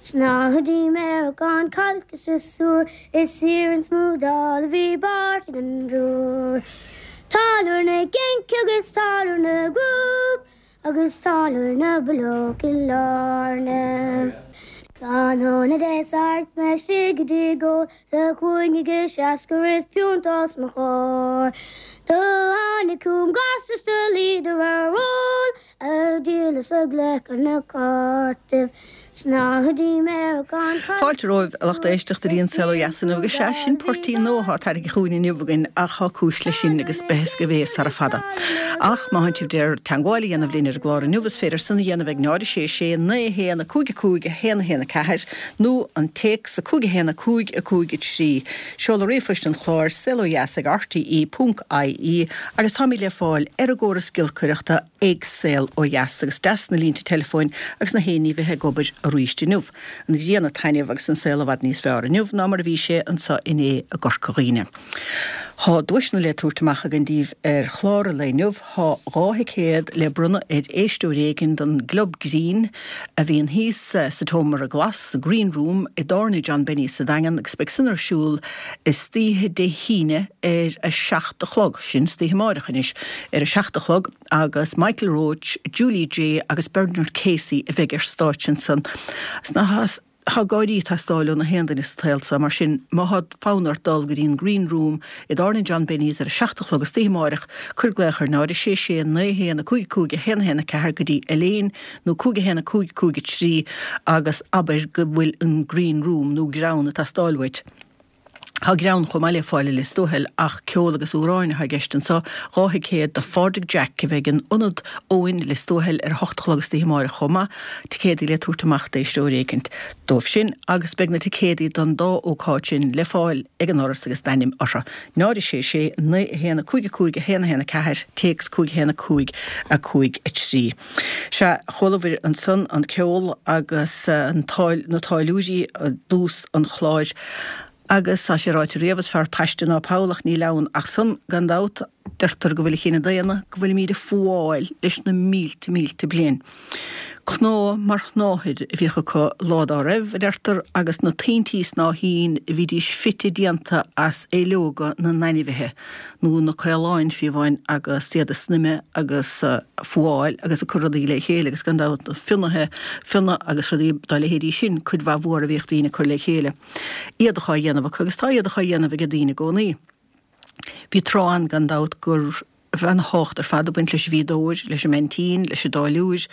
Snáthaidí Meiriceán cailc is siosúr is iarann smúdála a bhí bearrtha den dtriúr. Táilliúir na gCinc agus táilliúir na gCrúb agus táilliúir na bPileog i lár na. Tráthnóna Dé Sathairn 's mé istigh i dtigh óil sa chúinne ag seascar is piúnta os mo chomhair. Do tháinig chugam gasra 's do luíodar ar ól Ag díol is ag glacadh na cártaibh Snáthaidí Meiriceán Fáilte romhaibh a lucht éisteachta go dtí an Saol Ó Dheas inniu agus sea, sin poirtín nua atá tairgthe chugainn inniu againn ach tá cúis leis sin agus beidh fhios agaibh é sara fada. Ach má thánn sibh d'iarraidh teangmháil a dhéanamh linn ar an gclár inniu is féidir san a dhéanamh ag 0 6 6 9 1 5 5 1 1 4 nó an téacs 5 1 5 5 3. Seoladh ríomhphoist an chláir, saolodheas ag rte ponc ie agus táimid le fáil ar an gcóras giolcaireachta ag Saol Ó Dheas agus deas na línte teileafóin agus na haon ní bheith ag obair arís inniu. An ghrian ag taitneamh agus an saol i bhfad níos fearr inniu ná mar a bhí sé anseo inné i gCorca Dhuibhne. Thá duaiseanna le tabhairt amach againn daoibh ar chlár an lae inniu. Thá 2 thicéad le bronnadh ar éisteoir éigin don gClub Grinn a bhíonn thíos sa tSeomra Glas, the Green Room, i dTábhairne John Benny's sa Daingean agus beidh san ar siúl istoíche Dé hAoine ar a 7 a chlog, sin istoíche amáireach anois, ar a 7 a chlog agus Michael Roche, Julie Jay agus Bernard Casey a bheidh ar stáitse ansan. Tá gáirí ag teastáil ó na haon duine sa tsaol seo, mar sin má thá fonn ort dul go dtí an Green Room i dTábhairne John Benny's ar a 7 a chlog istoíche amáireach, cuir glaoch ar 0 6 6 9 1 5 5 1 1 4 go dtí Elaine nó 5 1 5 5 3 agus abair go bhfuil an Green Room nó greann ag teastáil uait. Tá greann chomh maith le fáil i Lios Tuathail ach ceol agus amhráin atá i gceist anseo, 2 thicéad do Phádraig Jack a bheidh in Ionad Eoin, Lios Tuathail ar a hocht a chlog istoíche amáireach chomh maith, ticéadaí le tabhairt amach d'éisteoir éicint dóibh sin agus beidh na ticéadaí don dá ócáid sin le fáil ag an ndoras agus d'ainm orthu. 0 6 6 9 1 5 5 1 1 4, téacs 5 1 5 5 3. Sea, chualabhair ansan an ceol agus an na táilliúirí i dtús an chláir agus tá sé ráite riamh, is fearr paiste ná poll ach níl ann ach san, gan dabht. Deirtear go bhfuil an chine daonna, go bhfuilimíd ag fuáil leis na mílte mílte bliain. Cnámh mar shnáthaid a bhíodh acu lá dá raibh, a deirtear, agus na tointí snáithín a bhídís fite déanta as aoileoga na n-ainmhithe. nó na caoláin fiú amháin agus iad ag snoimeadh agus ag fuáil agus ag cur rudaí le chéile agus gan dabht fionnaithe, fionnadh agus rudaí dá leithéidí sin, cuid mhaith mhór a bhíodh daoine ag cur le chéile. Éadach á dhéanamh acu agus tá éadach á dhéanamh ag daoine i gcónaí. Bhí tráth ann gan dabht go raibh ana-thábhacht ar fad ag baint leis an bhfíodóir, leis an mbeaintín, leis an dtáilliúir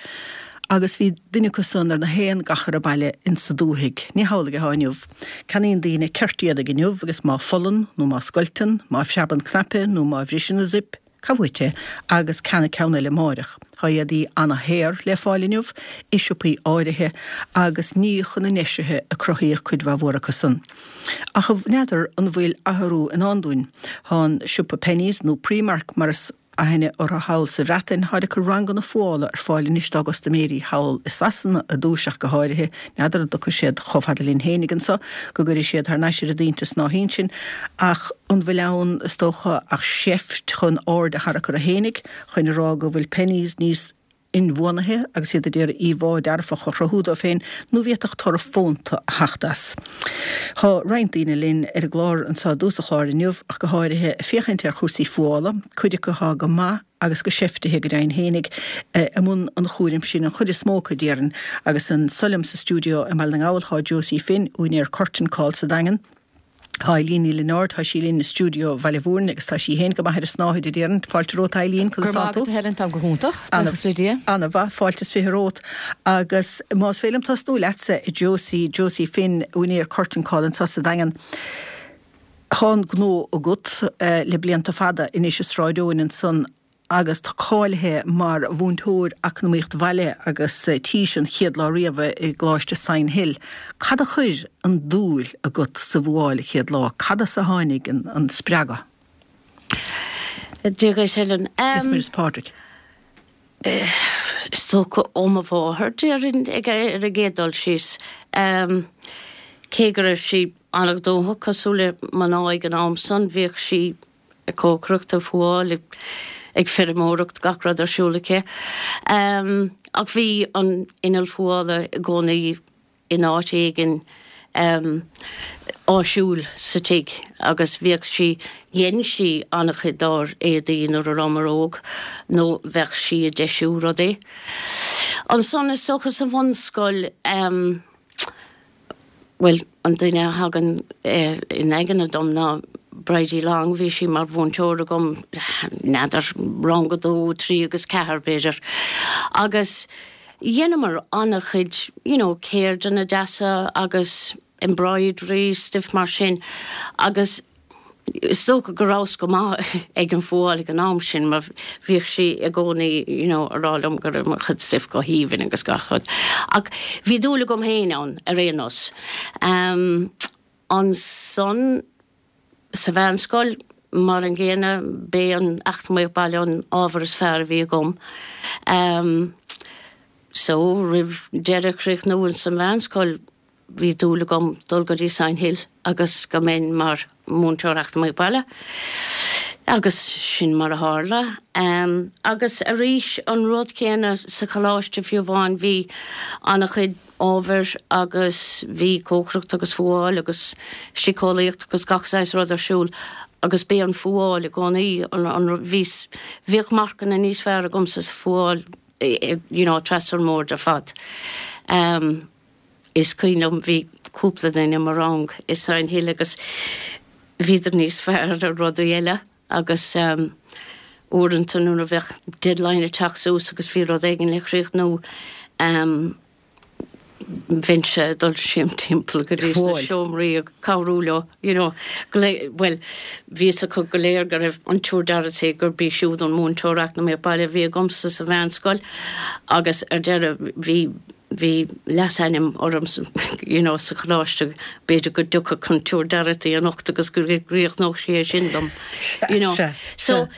agus bhí duine acu san ar na haon gachar baile insa dúthaigh. Ní hamhlaidh atá inniu. Ceannaíonn daoine ceirt éadaigh inniu agus má phollann nó má scoilteann, má phreabann cnaipe nó má bhriseann an zip, caith uait é agus ceannaigh ceann eile amáireach. Tá éadaí ana-shaor le fáil inniu i siopaí áirithe agus ní chun a ndeisithe a cruthaíodh cuid mhaith mhór acu san. Ach n'fheadar an bhfuil athrú i ndán dúinn. Tá an siopa Penneys nó Primark mar is aithne orthu thall sa Bhreatain, táid ag cur ranganna fuála ar fáil anois dá gcustaiméirí thall i Sasana i dtús ach go háirithe. N'fheadar an dtiocfaidh siad chomh fada linn fhéinig anso, go gcuirfidh siad thar n-ais ar a dtointe snáithín sinn, ach an bhfuil ann, is dócha, ach seift chun aird a tharrac orthu fhéinig, chun a rá go bhfuil Penneys níos inbhuanaithe agus iad ag iarraidh íomhá dearfach a chruthú dóibh féin nó bhféadfadh toradh fónta a theacht as. Tá roinnt daoine linn ar an gclár anseo i dtús an chláir inniu ach go háirithe ag féachaint ar chúrsaí fuála, cuid acu atá go maith agus go seiftithe go deimhin fhéinig i mbun an chúraim sin, an chuid is mó acu déarfainn, agus anso liom sa stiúideo i mBaile na nGall tá Josie Finn, úinéir Curtain Call sa Daingean. Tá Eileen Ní Lionáird, tá sí linn i stiúideo Bhaile Mhúirne agus tá sí féin go maith ar an snáthaid a déarfainn. Fáilte romhat Eileen, conas tá tú? Go raibh maith agat a Helen, táim go hiontach, buíochas le Dia. Ana-mhaith, fáilte is 20 romhat. Agus más féidir liom tosnú leatsa, a Josie, Josie Finn, úinéir Curtain Call anseo sa Daingean. Tá an gnó agat le blianta fada anois i Sráid Eoin ansan agus tú cáilithe mar mhúinteoir eacnamaíocht bhaile agus tís an chéad lá riamh i gColáiste Sion Hill. Cad a chuir an dúil agat sa bhfuáil an chéad lá? Cad as a tháinig an spreagadh? Dia dhuit, Helen. Dia is Muire is Pádraig. Is dócha ó mo mháthair, déarfainn, ag ar an gcéad dul síos. Cé go raibh sí an-ghnóthach, cosúil le mná ag an am san, bhíodh sí ag cócaireacht, ag fuáil, ag feirmeoireacht, gach rud ar siúl aici. Ach bhí an inneall fuála i gcónaí. in áit éigin áisiúil sa tigh agus bhíodh sí, dhein sí an-chuid dár éadaí nuair a rabhamar óg nó bheadh sí ag deisiú rudaí. Ansan is dócha sa bhunscoil, bhuel, an duine a thagann in aigne dom ná Bridie Long, bhí sí mar mhúinteoir agam, n'fheadar, rang a dó, trí agus ceathair b'fhéidir agus Dheineamar an-chuid you know ceirdeanna deasa agus embroidery, stuif mar sin agus is dócha go rabhas go maith ag an fuáil ag an am sin mar bhíodh sí i gcónaí you know a rá liom go raibh mo chuid stuif go haoibhinn agus gach rud. Ach bhí dúil agam féin ann ar aon nós. Ansan. Sa mheánscoil, mar an gcéanna, b'é an Eacnamaíocht Baile an ábhar is fearr a bhí agam. So, roimh deireadh a chríochnú ins an mheánscoil, bhí dúil agam dul go dtí Sign Hill agus go mbeinn mar mhúinteoir Eacnamaíocht Baile. Agus sin mar a tharla. Agus arís, an rud céanna sa choláiste fiú amháin, bhí an-chuid ábhair agus bhí cócaireacht agus fuáil agus síceolaíocht agus gach saghas rud ar siúl agus b'é an fuáil i gcónaí an, an, bhíos, bhíodh marcanna níos fearr agamsa sa fuáil you know trasna an mbord ar fad. Is cuimhin liom bhí cúpla duine i mo rang i Sign Hill agus bhíodar níos fearr ar rudaí eile agus uaireanta nuair a bheadh deadline ag teacht suas agus bhí rud éigin le críochnú bheinnse ag dul siar timpeall go dtí sna seomraí ag cabhrú leo, you know, bhuel, bhí fhios acu go léir go raibh an tSiúr Dorothy, gurb í siúd an múinteoir eacnamaíocht baile a bhí agamsa sa mheánscoil agus ar deireadh bhí bhí leasainm orm you know sa choláiste, b'fhéidir go dtiocfadh an tSiúr Dorothy anocht agus go gcríochnódh sí é sin dom, you know. So,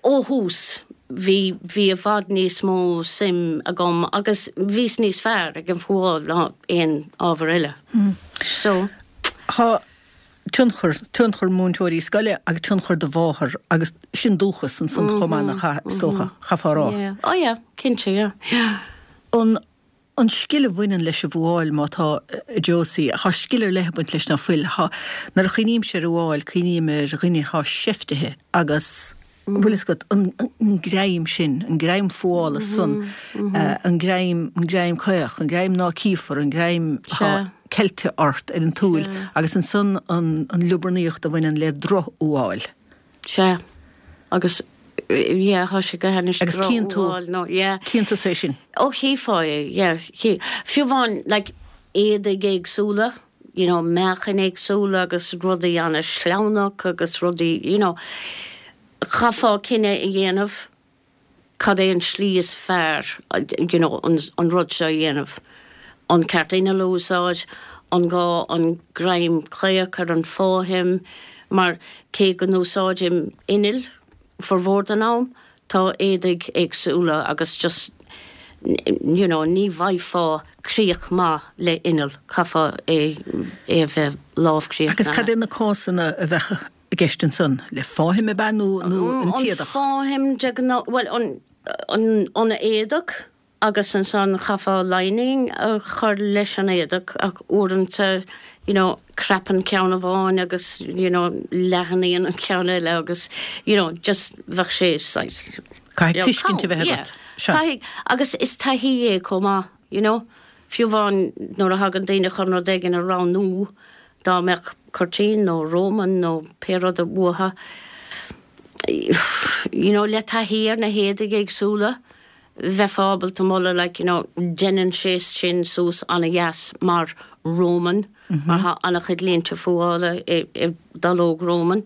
ó thús, bhí, bhí i bhfad níos mó suim agam agus bhíos níos fearr ag an bhfuáil ná aon ábhar eile. So. Tá tionchar, tionchar múinteoirí scoile agus tionchar do mháthar agus sin dúchas ansan chomh maith nach ea, is dócha, chaithfeá a rá. Yeah, oh yeah, cinnte, yeah, yeah. An, an scil a bhaineann leis an bhfuáil má tá, a Josie, tá scil ar leith ag baint leis ná fuil? Tá, nuair a chuimhnímse ar fhuáil, cuimhním ar dhuine atá seiftithe agus, bhfuil fhios agat, an, an greim sin, an greim fuála san, an greim, an greim caoch, an greim ná cífear, an greim atá ceilte ort ar an tsúil agus ansan an, an liobarnaíocht a bhaineann le drochfhuáil. Sea. Agus, yeah, tá sé go hainnis Agus cíonn tú, nó, yeah. cíonn tusa é sin? Ó, chífeá é, yeah. Chí, fiú amháin, like, éadaigh éagsúla, you know, meáchain éagsúla agus rudaí an-sleamhnach agus rudaí, you know, chaithfeá cinneadh a dhéanamh. cad é an slí is fearr you know an rud seo a dhéanamh, an ceart inneall a úsáid, an gá an greim caoch ar an fáithim, mar cé go n-úsáidim inneall formhór den am, tá éadaigh éagsúla agus just you know ní bhfaighfeá críoch maith le inneall, caithfeá é a bheith lámhchríochnaithe. Agus cad é na cásanna a bheadh i gceist ansan? Le fáithim ab ea nó an t-éadach? An fáithim de ghnáth, bhuel, an an éadach agus ansan chaithfeá lining a chur leis an éadach ach uaireanta you know crapann ceann amháin agus you know leathnaíonn an ceann eile agus you know just bheadh sé saghas Caithfidh tuiscint a bheith agat. Sea. Caithfidh, agus is taithí é chomh maith, you know. Fiú amháin nuair a thagann daoine chun rud éigin a roghnú, Dá mbeadh cuirtín nó Roman nó pé rud uathu, you know, le taithí ar na héadaigh éagsúla, bheifeá ábalta moladh like, you know, deineann sé sin suas ana-dheas mar Roman, mar tá ana-chuid línte fuála i dallóg Roman.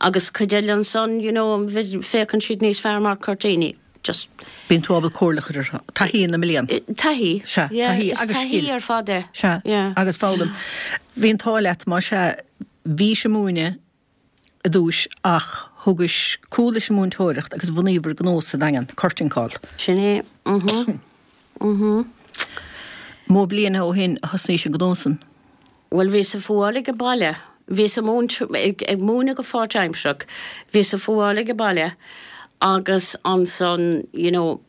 Agus cuid eile ansan, you know, féachann siad níos fearr mar cuirtíní. Just. Bíonn tú ábalta comhairle a chur orthu. Taithí na mblian. Taithí. Sea, taithí agus scil. Is taithí ar fad é. Sea, agus foghlaim. Bhí an t-ádh leat, más ea, bhís ag múineadh i dtús ach thugais cúl leis an múinteoireacht agus bhunaíobhair gnó sa Daingean, Curtain Call. Sin é. Mhm. Mhm. Mó bliana ó shin a thosnaís an gnó san? Bhuel, bhíos ag fuáil age baile. Bhíos ag múint, ag múineadh go pháirtaimsearach. Bhíos ag fuáil age baile agus ansan, you know,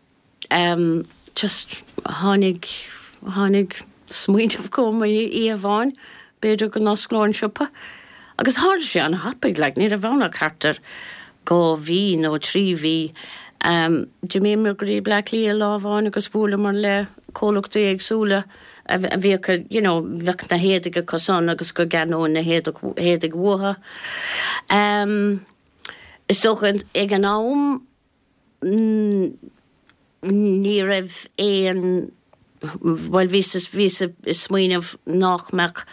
em, just tháinig, tháinig. smaoineamh chugam oíche amháin, b'fhéidir go n-osclóinn siopa. Agus tharla sé an-thapaidh, like, ní raibh ann ach thart ar 2 mhí nó 3 mhí. D'imíomar go dtí Bleá Cliath lá amháin agus bhuaileamar le comhlachtaí éagsúla a bhíodh, you know, bheadh na héadaigh acu san agus go gceannóinn na héadaigh uathu. Is dócha ag an am, Ní raibh aon, bhuel bhíos, bhíos ag smaoineamh nách mbeadh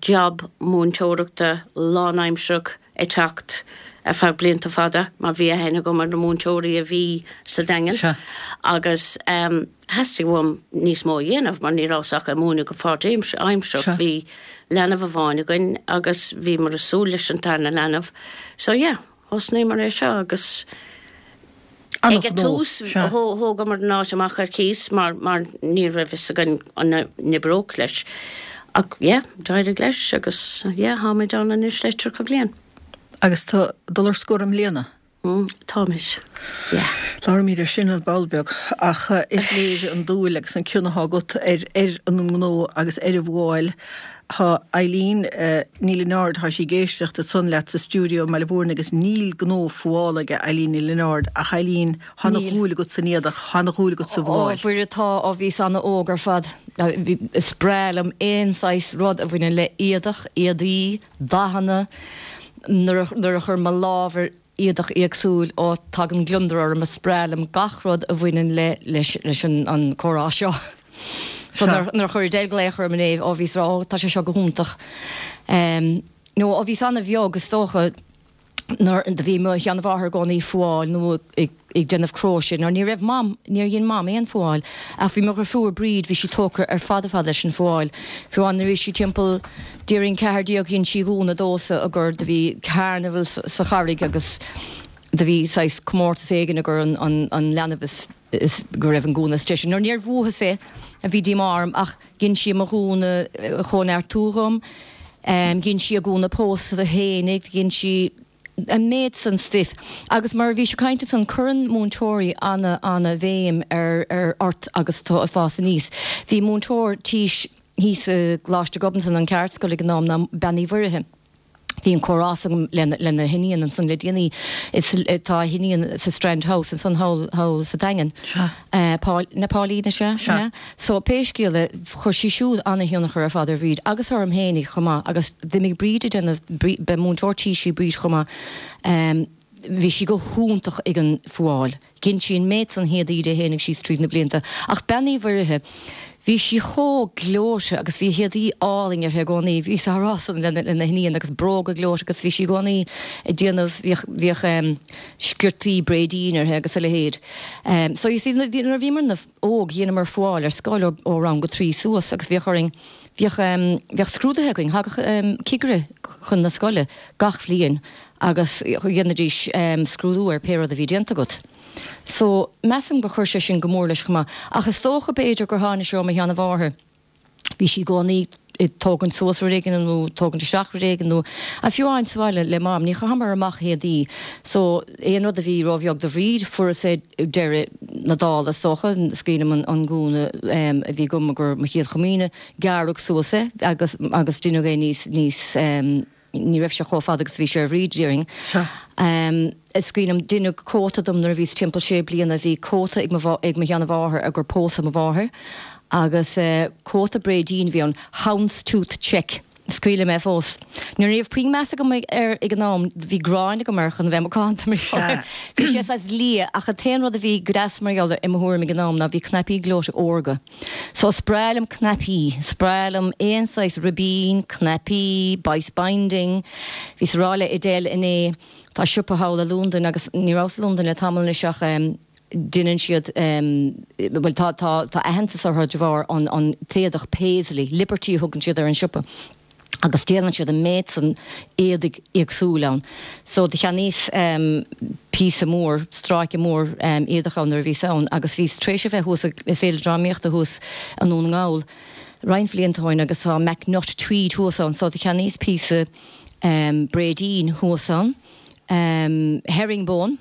job múinteoireachta lánaimsearach ag teacht ar feadh blianta fada mar bhí aithne agam ar na múinteoirí a bhí sa Daingean agus theastaigh uaim níos mó a dhéanamh mar ní rabhas ach ag múineadh go páirtaimsearach. Bhí leanbh amháin againn agus bhíomar ag súil leis an tarna leanbh so yeah. Thosnaíomar é seo agus ag an tús thógamar an áit amach ar cíos mar mar ní raibh fhios againn an n-oibreodh leis. Ach yeah, d'éirigh leis agus yeah, táimid ann anois le 30 bliain. Agus tú ag dul ar scor i mbliana? Mm, táimid, yeah. Labhróimid ar sin ar ball beag ach is léir an dúil agus an cion atá agat ar ar an ngnó agus ar an bhfuáil. Tá Eileen Ní Lionáird, tá sí ag éisteacht ansan leat sa stiúideo i mBaile Mhúirne agus níl gnó fuála aige Eileen Ní Lionáird ach Eileen, tá ana dhúil agat san éadach, tá ana dhúil agat sa bhfuáil. Ó, Mhuire, tá, ó bhíos ana-óg ar fad. Is breá liom aon saghas rud a bhaineann le éadach, éadaí, dathanna. Nuair a chuirim mo lámh ar éadach éagsúil, ó tagann gliondar orm, is breá liom gach rud a bhaineann le leis leis an an comhrá seo. So nuair nuair a chuir Edel glaoch orm inné, ó bhíos ag rá, ó tá sé seo go hiontach. Em nó ó bhíos ana-bheag is dócha nuair do bhí mo sheanmháthair i gcónaí ag fuáil nó ag ag déanamh cróise nó ní raibh Mam, níor dhein Mam aon fuáil ach bhí mo dhrifiúr Bríd, bhí sí tógtha ar fad ar fad leis an fuáil. Fiú amháin nuair a bhí sí timpeall déarfainn 14 dhein sí gúna domhsa i gcomhair do bhí carnival sa Charraig agus do bhí saghas comórtas éigin i gcomhair an an an leanbh is is go raibh an gúna is deise. Nuair níor bhuathas é a bhí díomá orm ach dhein sí mo ghúna a chóineartú dhom, dhein sí a gúna pósta fhéinig, dhein sí an méid san stuif. Agus mar a bhís ag caint ansan, cuireann múinteoirí ana, ana bhéim ar, ar, ort agus tú ag fás aníos. Bhí múinteoir tís thíos i gColáiste Ghobnatan, an cheardscoil ag an am, ná Bean Uí Mhuirithe. Bhí an comhrá s'agam lena, lena hiníon ansan le déanaí. Is, tá a hiníon sa Strand House ansan thall, thall sa Daingean. Sea. Paul, na Pauline is ea? Sea. So, pé scéal é, chuir sí siúd ana-thionchar ar fad ar Bhríd agus orm fhéinig chomh maith agus d'imigh Bríd ag déanamh, ba múinteoir tís í Bríd chomh maith, bhí sí go hiontach ag an fuáil. Dhein sí an méid san héadaí di fhéinig síos tríd na blianta. Ach Bean Uí Mhuirithe, bhí sí chomh gleoite agus bhí héadaí álainn uirthi i gcónaí. Bhíos á rá san lena, lena hiníon agus bróga gleoite agus bhí sí i gcónaí ag déanamh, bhíodh, bhíodh sciortaí bréidín uirthi agus a leithéid. So you see, nuair a bhíomar na. óg, dheineamar fuáil ar scoil ó rang a 3 suas agus bhíodh orainn, bhíodh, bhíodh scrúduithe againn, thagadh cigire chun na scoile gach bhliain agus dhéanaidís scrúdú ar pé rud a bhí déanta agat. So, measaim gur chuir sé sin go mór leis chomh maith. Ach is dócha b'fhéidir gur tháinig sé ó mo sheanamháthair. Bhí sí i gcónaí ag tógaint suas rud éigin nó tógaint isteach rud éigin nó fiú amháin sa bhaile le Mam, ní chaitheamar amach éadaí so aon rud a bhí róbheag do Bhríd, fuaireas é deireadh na dála is dócha. Is cuimhin liom an gúna a bhí agam i gcomhair mo chéad chomaoine, gearradh suas é agus agus deineadh é níos níos Ní raibh sé chomh fada agus a bhí sé ar Bhríd, déarfainn. Sea. Is cuimhin liom, deineadh cóta dom nuair a bhíos timpeall sé bliana. Bhí cóta ag mo, ag mo sheanamháthair i gcomhair pósadh mo mháthair agus cóta bréidín a bhí ann, houndstooth check. Is cuimhin liom é fós. Ní raibh puinn meas agam air ag an am, bhí gráin agam air chun a bheith macánta mar gheall air. Bhí sé saghas liath ach an t-aon rud a bhí go deas mar gheall air i mo thuairim ag an am ná bhí cnaipí gleoite órga. So is breá liom cnaipí, is breá liom aon saghas ribín, cnaipí, bias binding. Bhíos ag rá le Edel inné, tá siopa thall i Londain agus ní rabhas i Londain le tamall anois ach deineann siad, bhuel tá, tá, tá aitheantas orthu de bharr an, an t-éadach paisley, Liberty a thugann siad ar an siopa. agus déanann siad an méid san éadaigh éagsúil ann. So do cheannaíos píosa mór, stráice mór éadach ann nuair a bhíos ann agus bhíos tar éis a bheith thuas ag Féile Drámaíochta thuas i nDún na nGall roinnt bhlianta ó shin agus tá MacNutt Tweed thuas ann so do cheannaíos píosa bréidín thuas ann, herringbone.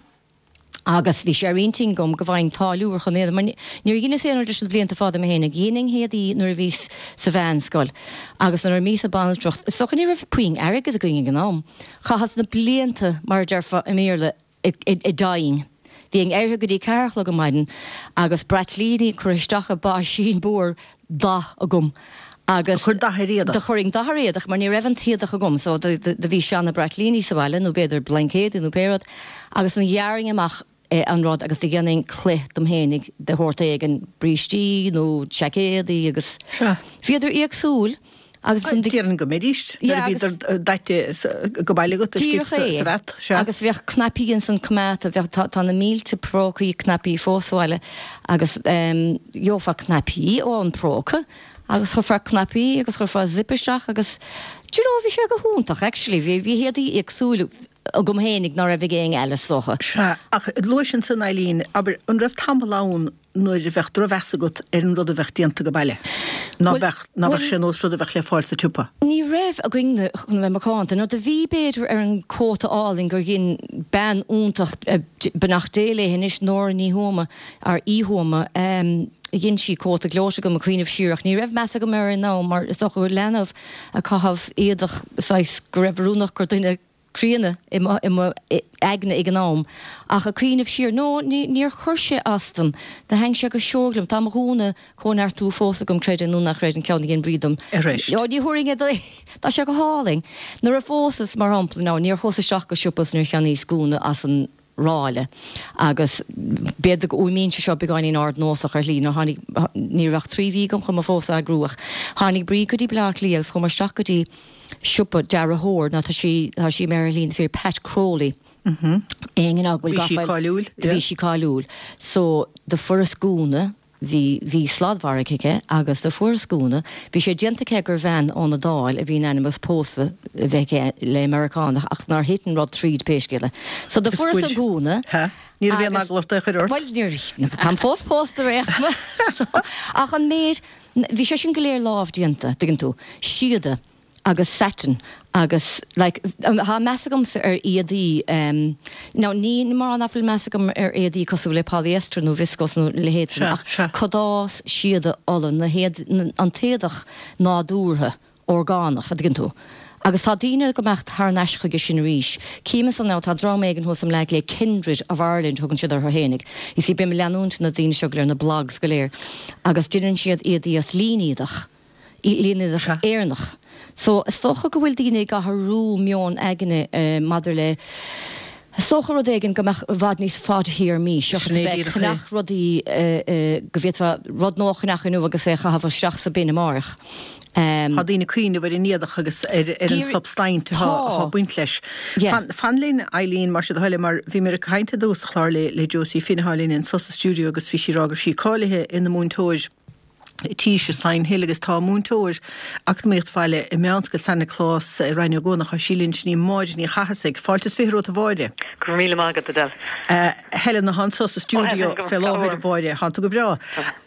Agus bhí sé ar intinn agam go bhfaighinn táilliúir chun éadaí, mar níor dheineas aon rud leis na blianta fada mé fhéinig. Dheininn éadaí nuair a bhíos sa mheánscoil agus nuair a bhíos ag banaltracht, is dócha ní raibh puinn airgid againn ag an am. Chaitheas na blianta, mar a déarfá i mBéarla, ag dyeing. Bhínn éirithe go dtí ceathair a chlog ar maidin agus braitlíní curtha isteach i báisín mór dath agam agus. Do chuir dath ar éadach. Do chuirinn dath ar éadach mar ní raibh an t-éadach agam so do bhí seana braitlíní sa bhaile nó b'fhéidir blaincéadaí nó pé rud agus do ghearrainn amach an rud agus do dhéanainn cloich dom fhéinig de shórt éigin, brístí nó seaicéadaí agus Sea. bhíodar éagsúil agus ansan do. Déarfainn go mbeidís nuair a bhíodar daite go baile agat istigh Díreach é. sa bhat, sea. Agus bheadh cnaipí ansan coimeádta, bheadh, tá, tá na mílte prócaí cnaipí fós sa bhaile agus gheofá cnaipí ón bpróca agus chuirfeá cnaipí agus chuirfeá zip isteach agus do you know bhí sé go hiontach actually, bhí, bhí éadaí éagsúil agam fhéinig ná raibh ag éinne eile is dócha. Sea, ach luais ansan Eileen, abair, an raibh tamall ann nuair a bheadh drochmheas agat ar an rud a bheadh déanta go baile? Ná beadh, ná beadh sé nós rud a bheadh le fáil sa tsiopa? Ní raibh againn chun a bheith macánta. Nó do bhí b'fhéidir ar an cóta álainn gur dhein bean iontach, beannacht Dé léi anois, Nóra Ní Thuama, or Uí Thuama, dhein sí cóta gleoite dom ag cuimhneamh siar ach ní raibh meas agam air ag an am mar is dócha gur leanbh ag caitheamh éadach saghas go raibh oiriúnach gur duine críonna i mo aigne ag an am ach ag cuimhneamh siar, no, níor chuir sé as dom, do thaitn sé go seoigh liom. Tá mo ghúna Cóineartú fós agam, creid é nó ná creid, an ceann a dhein Bríd dom. Arís. Ó, ní thabharfainn é duit. Tá sé go hálainn. Nuair a phósas, mar shampla, now, níor chuas isteach go siopa is níor cheannaíos gúna as an ráille agus b'fhéidir go bhfuaimníonn sé seo beagáinín ardnósach ar shlí, nuair tháinig, ní raibh ach 3 mhí agam chun mo phósadh a eagrú ach tháinig Bríd go dtí Baile Átha Cliath agus chuamar isteach go dtí siopa dearthóir, nó tá sí, tá sí imithe ar shlí na fírinne, Pat Crowley. Éinne ná go bhfuil Bhí sí gafa, cáiliúil, do bhí sí cáiliúil. So do fuaireas gúna. Bhí, bhí sladmhargadh aici agus do fuaireas gúna, bhí sé déanta aici gur bhean ón Iodáil a bhí in ainm is pósadh a bheith aici le Meiriceánach ach nár thit an rud tríd pé scéal é. So do Agus fuaireas fuair, an gúna ha, ní raibh aon agus, eagla ort é a chur ort. bhuel níor, táim fós pósta ar aon chuma so, ach an méid, bhí sé sin go léir lámh déanta, tuigeann tú, síoda. agus satin agus like tá meas agamsa ar éadaí em now ní mar nach bhfuil meas agam ar éadaí cosúil le polyester nó viscose nó a leithéid sin Sea, ach sea. cadás, síoda, olann, na héad, an t-éadach nádúrtha, orgánach, a dtuigeann tú. Agus tá daoine ag imeacht thar n-ais chuige sin arís. Cím ansan now tá dream éigin thuas i mBleá Cliath, Kindred of Ireland thugann siad orthu fhéinig. You see bím ag leanúint na daoine seo go léir, na blogs go léir agus deineann siad éadaí as línéadach. línéadach Éireannach. So, is dócha go bhfuil daoine ag athrú meon aigne maidir le, is dócha rud éigin go mbeadh i bhfad níos fadtéarmaí seachas Sin é a bheith ag díreach é. ceannach rudaí go bhféadfá rud nua a cheannach inniu agus é a chaitheamh isteach sa bin amárach. Tá daoine ag cuimhneamh ar an éadach agus ar an substaint atá Tá. ag baint leis. Yeah. Fan, fan linn, Eileen, más é do thoil é, mar bhí mé ag caint i dtús an chláir le, le Josie Finn atá linn anso sa stiúideo agus bhí sí ag rá go raibh sí cáilithe ina múinteoir tís i Sign Hill agus tá múinteoir Eacnamaíocht Bhaile i Meánscoil San Nioclás i Rinn Ó gCuanach, tá sí linn, sin í Máire Ní Chathasaigh. Fáilte is 20 romhat a Mháire. Go raibh míle maith agat, Edel. Helen atá anso sa stiúideo fé láthair, a Mháire. Tánn tú go breá.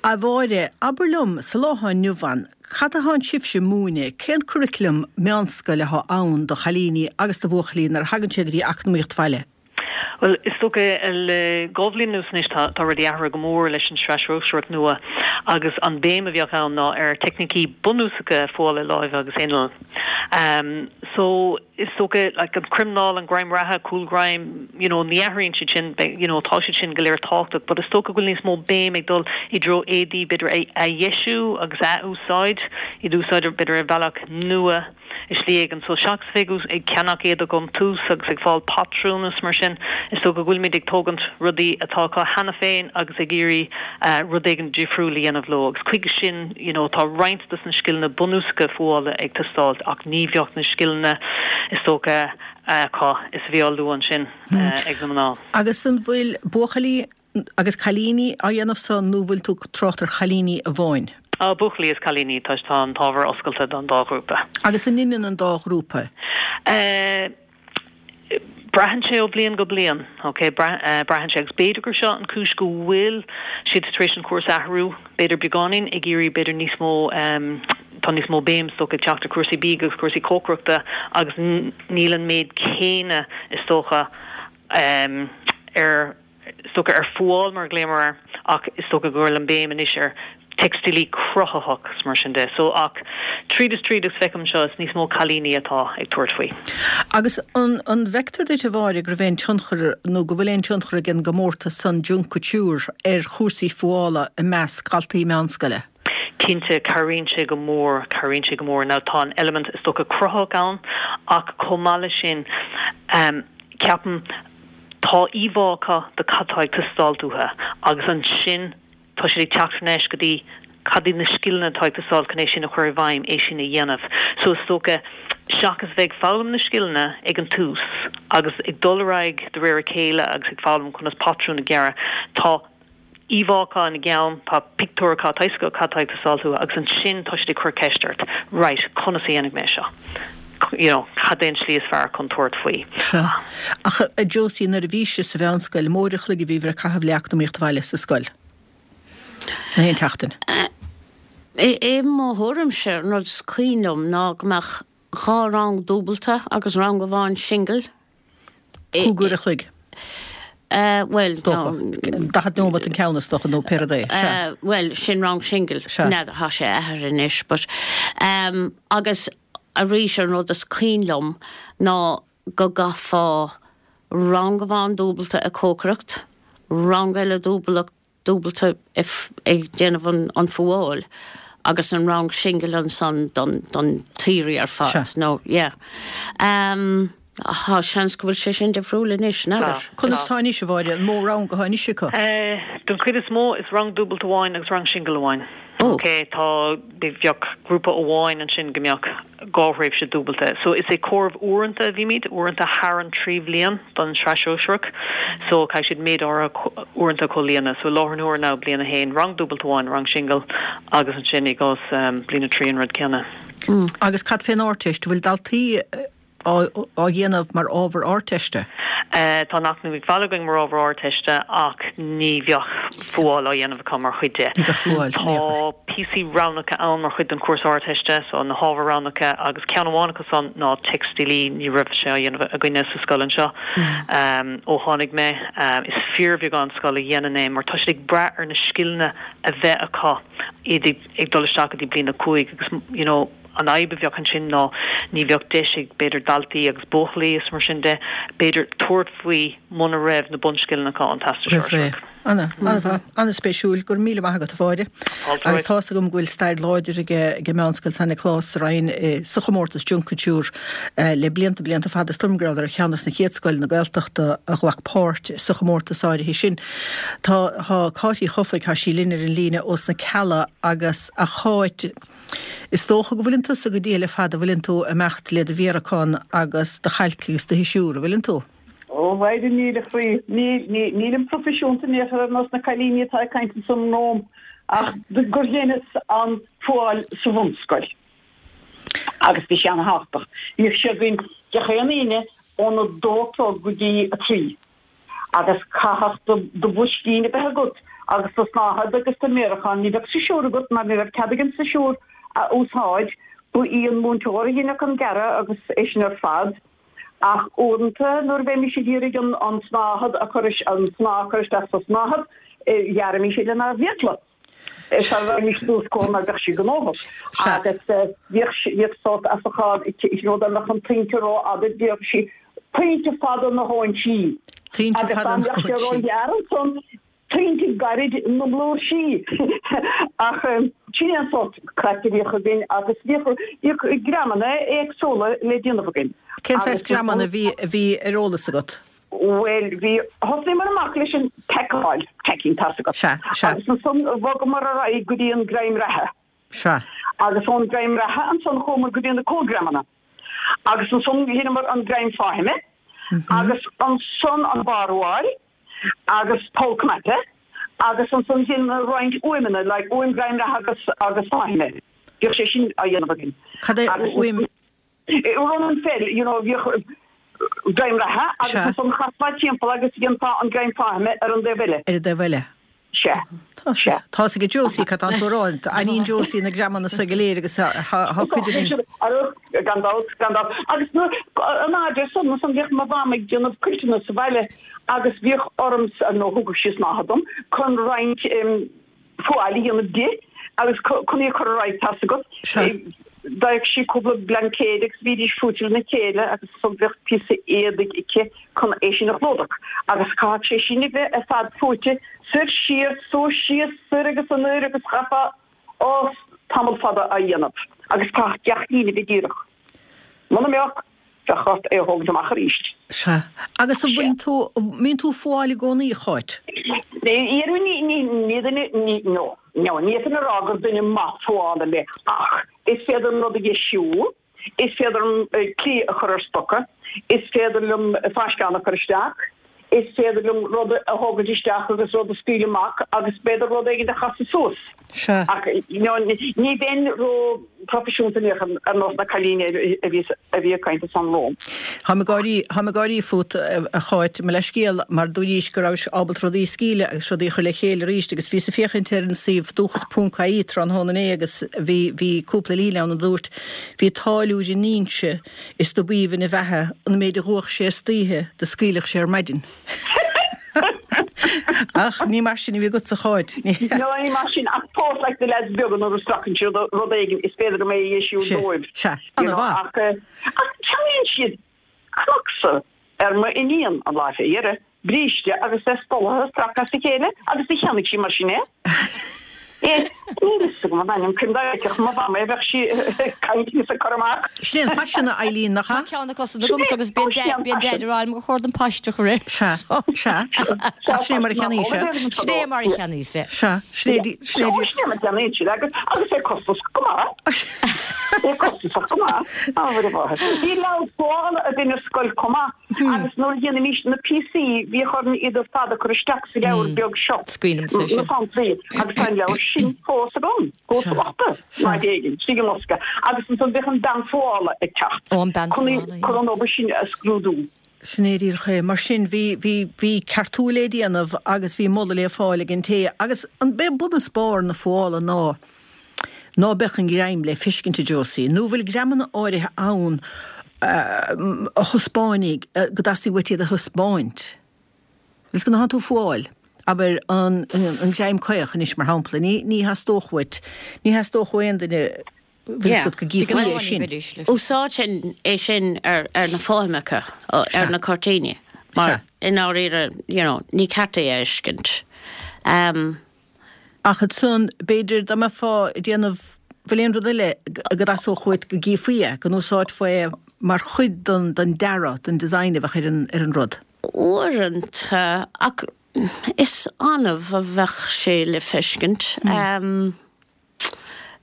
A Mháire, abair liom, sa lá atá inniu ann, cad atánn sibhse ag múineadh, cén curriculum meánscoile atá ann do chailíní agus do bhuachaillí nuair a thagann sé go dtí Eacnamaíocht Bhaile? Bhuel, is dócha le dhá bhliain anuas anois tá rudaí athraithe go mór leis an Sraith Shóisearach nua agus an béim a bheadh ann ná ar teicnící bunúsacha fuála láimhe agus innill. So, is dócha like an crimneáil, an greim reatha, cúlghreim, you know, ní athraíonn siad sin, you know, tá siad sin go léir tábhachtach but is dócha go bhfuil níos mó béim ag dul i dtreo éadaí b'fhéidir a dheisiú agus a athúsáid, iad a úsáid b'fhéidir ar bhealach nua. i slí éigin. So seachas bheith ag ceannach éadach ón tús agus ag fáil patrún is mar sin, is dócha go bhfuilimid ag tógaint rudaí atá acu cheana féin agus ag iarraidh rud éigin difriúil a dhéanamh leo. Agus chuige sin, you know, tá roinnt dos na scileanna bunúsacha fuála ag teastáilt ach ní bheadh na scileanna, is dócha, acu is a bhí á lua ansin ag na mná. Agus an bhfuil buachaillí Agus cailíní á dhéanamh san nó bhfuil tú ag trácht ar chailíní amháin? Á, buachaillí is cailíní, tá tá an t-ábhar oscailte don dá ghrúpa. Agus an ionann an dá ghrúpa? Eh, braitheann sé ó bhliain go bliain, ok, braitheann sé agus b'fhéidir gur seo an cúis go bhfuil siad tar éis an cúrsa a athrú, b'fhéidir beagáinín, ag iarraidh b'fhéidir níos mó, tá níos mó béim is dócha ag teacht ar cúrsaí bídh agus cúrsaí cócaireachta agus níl an méid céanna is dócha ar. is dócha, ar fuáil mar a ghlaomar air ach is dócha go bhfuil an béim anois ar teicstílí cruthaitheach is mar sin de. So ach tríd is tríd agus feicim anseo is níos mó cailíní atá ag tabhairt faoi. Agus an an bhfeictear duit a Mháire go raibh aon tionchar nó go bhfuil aon tionchar ag an gcomórtas san Junk Kouture ar chúrsaí fuála i measc dhaltaí meánscoile? Cinnte, cabhraíonn sé go mór, cabhraíonn sé go mór. Now tá an eilimint is dócha cruthaitheach ann ach chomh maith leis sin ceapaim tá íomhá acu de cad tá ag teastáilt uathu agus ansin tá siad ag teacht thar n-ais go dtí cad iad na scileanna atá ag teastáil chun é sin a chur i bhfeidhm, é sin a dhéanamh. So is dócha seachas bheith ag foghlaim na scileanna ag an tús agus ag dul ar aghaidh de réir a chéile agus ag foghlaim conas patrún a ghearradh, tá íomhá acu ina gceann, tá pictiúr acu, tá fhios acu cad tá ag teastáilt uathu agus ansin tá siad ag cur ceist ort, right, conas a dhéanfaidh mé seo? You know, cad é an tslí is fearr chun tabhairt faoi? Sea. Ach a Josie, nuair a bhís-se sa mheánscoil, an mó uair a chloig a bhíobhair ag caitheamh le eacnamaíocht bhaile sa scoil? Na haon tseachtain? I mo thuairimse, an rud is cuimhin liom ná go mbeadh 2 rang dúbalta agus rang amháin singil. 5 uair a chloig. Bhuel, Is dócha. 40 nóimeat an ceann is dócha nó pé rud é. Sea. Bhuel, sin rang singil. Sea. N'fheadar, tá sé athraithe anois but agus arís an rud is cuimhin liom ná go gcaithfeá rang amháin dúbalta ag cócaireacht, rang eile dúbalta dúbalta ag déanamh an fuáil agus an rang singil ansan don don tsaoirí ar fad nó yeah. Tá seans go bhfuil sé sin difriúil anois, n'fheadar. Conas atá anois, a Mháire, an mó rang atá anois acu? Don chuid is mó is rang dúbalta amháin agus rang singil amháin. Ok, tá, bheadh grúpa amháin ansin go mbeadh 2 thréimhse dúbalta. So is ag comhaireamh uaireanta a bhímid, uaireanta thar an 3 bhliain don tSraith Shóisearach. So caithfidh siad méid áirithe uaireanta a chomhlíonadh. So i láthair na huaire now, bliain 1, rang dúbalta amháin, rang singil agus ansin i gcás bliain 3 an rud céanna. Agus cad fén Ardteist, an bhfuil daltaí á dhéanamh mar ábhar Ardteiste? Tá an Eacnamaíocht Bhaile againn mar ábhar Ardteiste ach ní bheadh fuáil á dhéanamh acu mar chuid de. Ní bheadh fuáil in aon chor. Tá píosaí roghnacha ann mar chuid den chúrsa Ardteiste, so na hábhair roghnacha agus ceann amháin acu san ná teicstílí, ní raibh sé á dhéanamh againne sa scoil anseo ó tháinig mé. Is fíorbheagán scoil a dhéanann é mar tá siad ag brath ar na scileanna a bheith acu iad ag dul isteach go dtí bliain 5 agus you know, An fhadhb a bheadh ansin ná ní bheadh deis ag, b'fhéidir, daltaí agus buachaillí is mar sin de, b'fhéidir, tabhairt faoi muna raibh na bunscileanna acu ón Teastas Roimh ré. Sóisearach. Ana, ana-mhaith, ana-spéisiúil. Go raibh míle maith agat, a Mháire. Fáilte Agus romhat. tá's agam go bhfuil stair láidir ag, ag Meánscoil San Nioclás sa Rinn sa chomórtas Junk Kouture le blianta, blianta fada. Is dóigh liom go rabhadar ar cheann des na chéad scoileanna Gaeltachta a ghlac páirt sa chomórtas áirithe sin. Tá, tá Cáit Uí Chofaigh, tá sí linn ar an líne ós na Cealla agus, a Cháit, Is dócha go bhfuileann tusa go diail ar fad, a bhfuileann tú imeacht le do mhéaracán agus do chailc agus do shisiúr, a bhfuileann tú? Ó, Mháire, níl a chroí. Níl, níl, nílim proifisiúnta in aon chor ar nós na cailíní atá ag caint ansan romham, ach gur dheineas an fuáil sa bhunscoil. Agus bhí sé ana-thábhachtach. Bhíodh sé againn gach aon Aoine óna dó a chlog go dtí a trí. Agus chaithfeadh do bhoiscín a bheith agat agus do shnáthaid agus do mhéarachán. Ní bheadh sisiúr agat mar ní raibh cead againn sisiúr a úsáid. Ba í an múinteoir a dheineadh an gearradh agus é sin ar fad. Ach uaireanta nuair a bheimis ag iarraidh an tsnáthaid a chur, an snáth a chur isteach sa tsnáthaid, ghearraimis é lenár bhfiacla. Sara raghaimís suas chucu mar bheadh sí gnóthach. Agus bhíodh bhíodh sórt asachán you know dá mbeadh an tointe rófhada bhíodh sí tointe fada na hóinsí. Tointe Agus fada dá na mbeadh sé hóinsí. róghearr ansan tointe gairid na mblúirsí. Ach sin é an sórt craic a bhíodh againn agus bhíodh bhíodh greamanna éagsúla le déanamh againn. Cén saghas Agus greamanna a bhí a bhí ar eolas agat? Bhuel, bhí, thosnaíomar amach leis an tackáil, tacking, tá's agat. Sea, sea. Agus ansan bhogamar ar aghaidh go dtí an greim reatha. Sea. Agus ón greim reatha ansan chuamar go dtí na cúlghreamanna. Agus ansan dheineamar an greim fáthaime. Agus ansan an barrfhuáil agus poll cnaipe. Agus ansan dheineamar roinnt uaimheanna, like uaim greim reatha agus, agus fáthaime. Bhíodh sé sin á dhéanamh againn. Cad é Agus uaim? Run and fell, you know, bhíodh greim reatha agus Sea. ansan chasfá timpeall agus dhéanfá an greim fáthaime ar an dtaobh eile. Ar an dtaobh eile. Sea. Tá sé. Tá 'fhios ag Josie cad tánn tú a rá. Aithníonn Josie na greamanna so go léir agus tá cuid againn. Gan dabht, gan dabht. Agus nuair, an fhaid san, ansan bhíodh mo mham ag déanamh cuilteanna sa bhaile agus bhíodh ormsa, nó thugadh sí snáithe dom, chun roinnt fuáil a dhéanamh di agus chun í a chur ar aghaidh, tá's agat. D'fhaigheadh sí cúpla blaincéid agus bhídís fuaite lena chéile agus ansan bheadh píosa éadaigh aici chun é sin a chlúdach agus chaithfeadh sé sin a bheith ar fad fuaite soir siar, suas síos, soir agus anoir agus chaithfeá, ó, tamall fada á dhéanamh agus chaithfeadh gach líne a bheith díreach. Muna mbeadh, bheadh ort é a thógaint amach arís. Sea. Agus an bhfuil tú, mbíonn tú ag fuáil i gcónaí, a Cháit? Ní, ní, ní, ní duine, ní, no, no, ní fhéadfainn a rá gur duine maith fuála mé ach is féidir liom rud a dheisiú, is féidir liom cliath a chur ar stoca, is féidir liom fáisceán a chur isteach, is féidir liom rud a thógaint isteach agus rud a scaoileadh amach agus b'fhéidir rud éigin a chasadh suas. Sea. Ach ní bheinn ró-phroifisiúnta in aon chor ar nós na cailíne a bhí a bhí ag caint ansan romham. Táim ag gáirí, táim ag gáirí fút, a Cháit, mo leithscéal, mar dúraís go rabhais ábalta rudaí a scaoileadh agus rudaí a chur le chéile arís agus bhíos ag féachaint ar an suíomh dúchas ponc ie tráthnóna inné agus bhí, bhí cúpla líne ann a dúirt, Bhí táilliúir in Inse is do b'aoibhinn a bheatha an méid a dh'fhuaigh sé istoíche do scaoilfeadh sé ar maidin. Ach ní mar sin a bhí agatsa, a Cháit. No, ní mar sin, ach fós like na leaids beaga nuair a stracann siad rud éigin is féidir liom é a dheisiú dóibh. Sea, sea, ana-mhaith. Ach, ach ceannaíonn siad Crocs ar m'iníon an lá fé dheireadh. bríste agus é spolaithe stractha as a chéile agus do cheannaigh sí mar sin é. É, níl fhios agam an ainm cinn dá bhfeicfeadh mo mham é bheadh sí ag caint agus ag cur amach. Sin é an faisean, a Eileen, nach ea? Tá ceann acu san agamsa agus bíonn Daid ag rá liom gur chóir dom paiste a chur air. Sea, sea, ach sin é mar a cheannaíos é. Sin é mar a cheannaíos é. Sea, sin é, sin é. Sin é mar a cheannaíonn siad agus, agus é costasach go maith. É costasach go maith. Á, a mháthair. Bhí leabhar fuála againn ar scoil chomh maith. Agus nuair a dhéanaimís na píosaí, bhíodh orainn iad ar fad a chur isteach sa leabhar beag seo, na samplaí, agus tá an leabhar sin fós agam, go bocht, in áit éigin, istigh i mbosca. Agus ansan bhíodh an bean fuála ag teacht chun an obair sin a scrúdú. Sin é díreach é. Mar sin, bhí, bhí, bhí ceartú le déanamh agus bhí moladh le fáil ag an té. Agus an, b'é bun is barr na fuála ná, ná beadh an greim le feiscint, a Josie, nó bhfuil greamanna áirithe ann a thaispeánfaidh, go dteastaíonn uait iad a thaispeáint. Agus nuair atánn tú ag fuáil, abair, an greim caoch anois, mar shampla, ní, ní theastódh uait, ní theastódh ó aon duine, bhfuil fhios agat, go gcífí é sin. Úsáidfinn é sin ar, ar na fothameacha, ar na cuirtíní, mar i ndáiríre, you know, ní ceart é a fheiscint. Ach ansan, b'fhéidir, dá mbeifeá ag déanamh, bhfuil aon rud eile go dteastódh uait go gcífí é, go n-úsáidfeá é mar chuid den, den dearadh, den design a bheadh ar an, ar an rud? Uaireanta, ach is annamh a bheadh sé le feiscint.